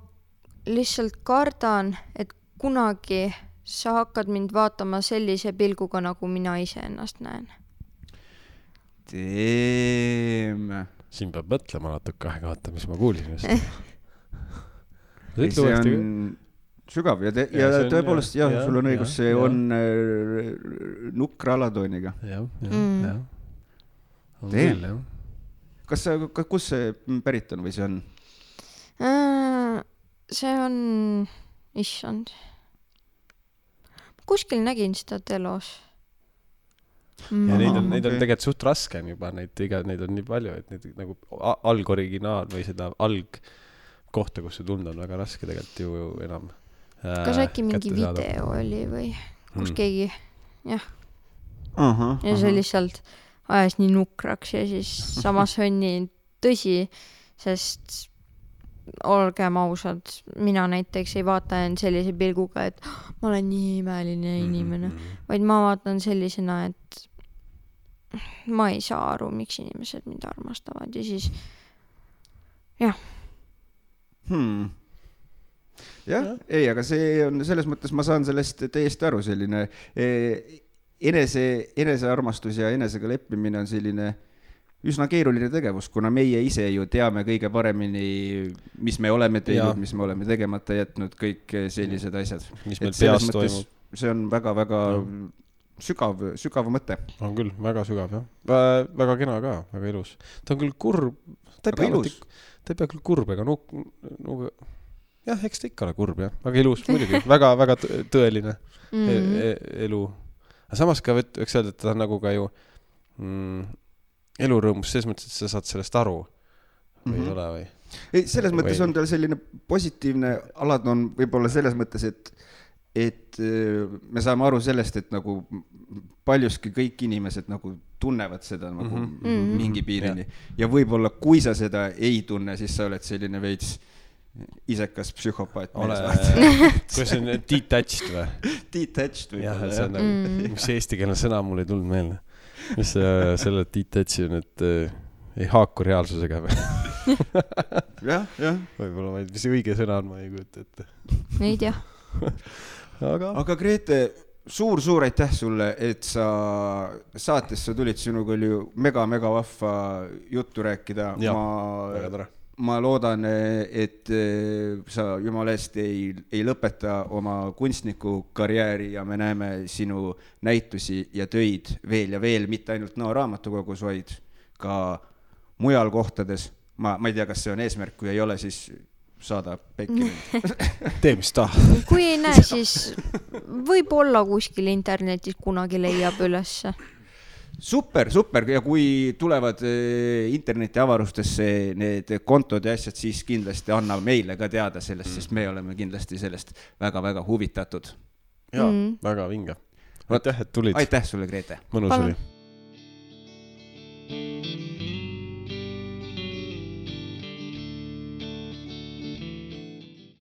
lihtsalt kardan, et kunagi sa hakkad mind vaatama sellise pilguga, nagu mina ise ennast näen. Siin peab mõtlema natuke aega, vaata, mis ma kuulsin just. See on sügav ja tõepoolest, jah, sul on õigus, see on nukra alatooniga. Jah. Kus see pärit on või see on? See on, issand. Kuskil nägin seda telos. Ja neid on tegelikult suht raske juba, neid on nii palju, et neid nagu algoriginaal või seda algkohta, kus see tunda on väga raske tegelikult ju enam kas äkki mingi video oli või kus keegi, jah. Ja see lihtsalt ajas nii nukraks ja siis samas on nii tõsi, sest olgem ausad, mina näiteks ei vaata end sellise pilguga, et ma olen nii imeline inimene, vaid ma vaatan sellisena, et ma ei saa aru, miks inimesed mind armastavad ja siis jah. Jah, ei, aga see on selles mõttes, ma saan sellest täiesti aru, selline enesearmastus ja enesega leppimine on selline üsna keeruline tegevus, kuna meie ise ju teame kõige paremini, mis me oleme teinud, mis me oleme tegemata jätnud, kõik sellised asjad. Mis meil peas toimub. See on väga-väga sügav mõte. On küll, väga sügav, jah. Väga kena ka, väga ilus. Ta on küll kurb, ta ei pea küll kurb, ega jah, eks ta ikka ole kurb, jah. Väga ilus, muidugi. Väga tõeline elu. Aga samas ka võiks öelda, et ta on nagu ka ju elurõõmus, selles mõttes, et sa saad sellest aru või ei ole või? Ei, selles mõttes on tal selline positiivne alad on võib-olla selles mõttes, et me saame aru sellest, et nagu paljuski kõik inimesed nagu tunnevad seda nagu mingi piirini. Ja võib-olla kui sa seda ei tunne, siis sa oled selline veits isekas psühhopaat. Kui see on detached või? Detached võib olla, jah. Mis eestikeelne sõna mul ei tulnud meelde. Mis selle detached on, et ei haaku reaalsusega või? Jah. Võib-olla vaid, mis õige sõna on, ma ei kujuta ette. Ei tea. Aga Grete, suur aitäh sulle, et sa saatesse tulid, sinuga oli ju mega vahva juttu rääkida. Väga tore. Ma loodan, et sa jumala eest ei lõpeta oma kunstniku karjääri ja me näeme sinu näitusi ja töid veel ja veel, mitte ainult Nõo raamatukogus, vaid ka mujal kohtades. Ma ei tea, kas see on eesmärk, kui ei ole, siis saada pekki. Tee, mis ta. Kui ei näe, siis võib-olla kuskil internetis kunagi leiab ülesse. Super ja kui tulevad interneti avarustesse need kontod ja asjad, siis kindlasti anna meile ka teada sellest, sest me oleme kindlasti sellest väga huvitatud. Jaa, väga vinge. Aitäh, et tulid. Aitäh sulle, Grete. Mõnus oli.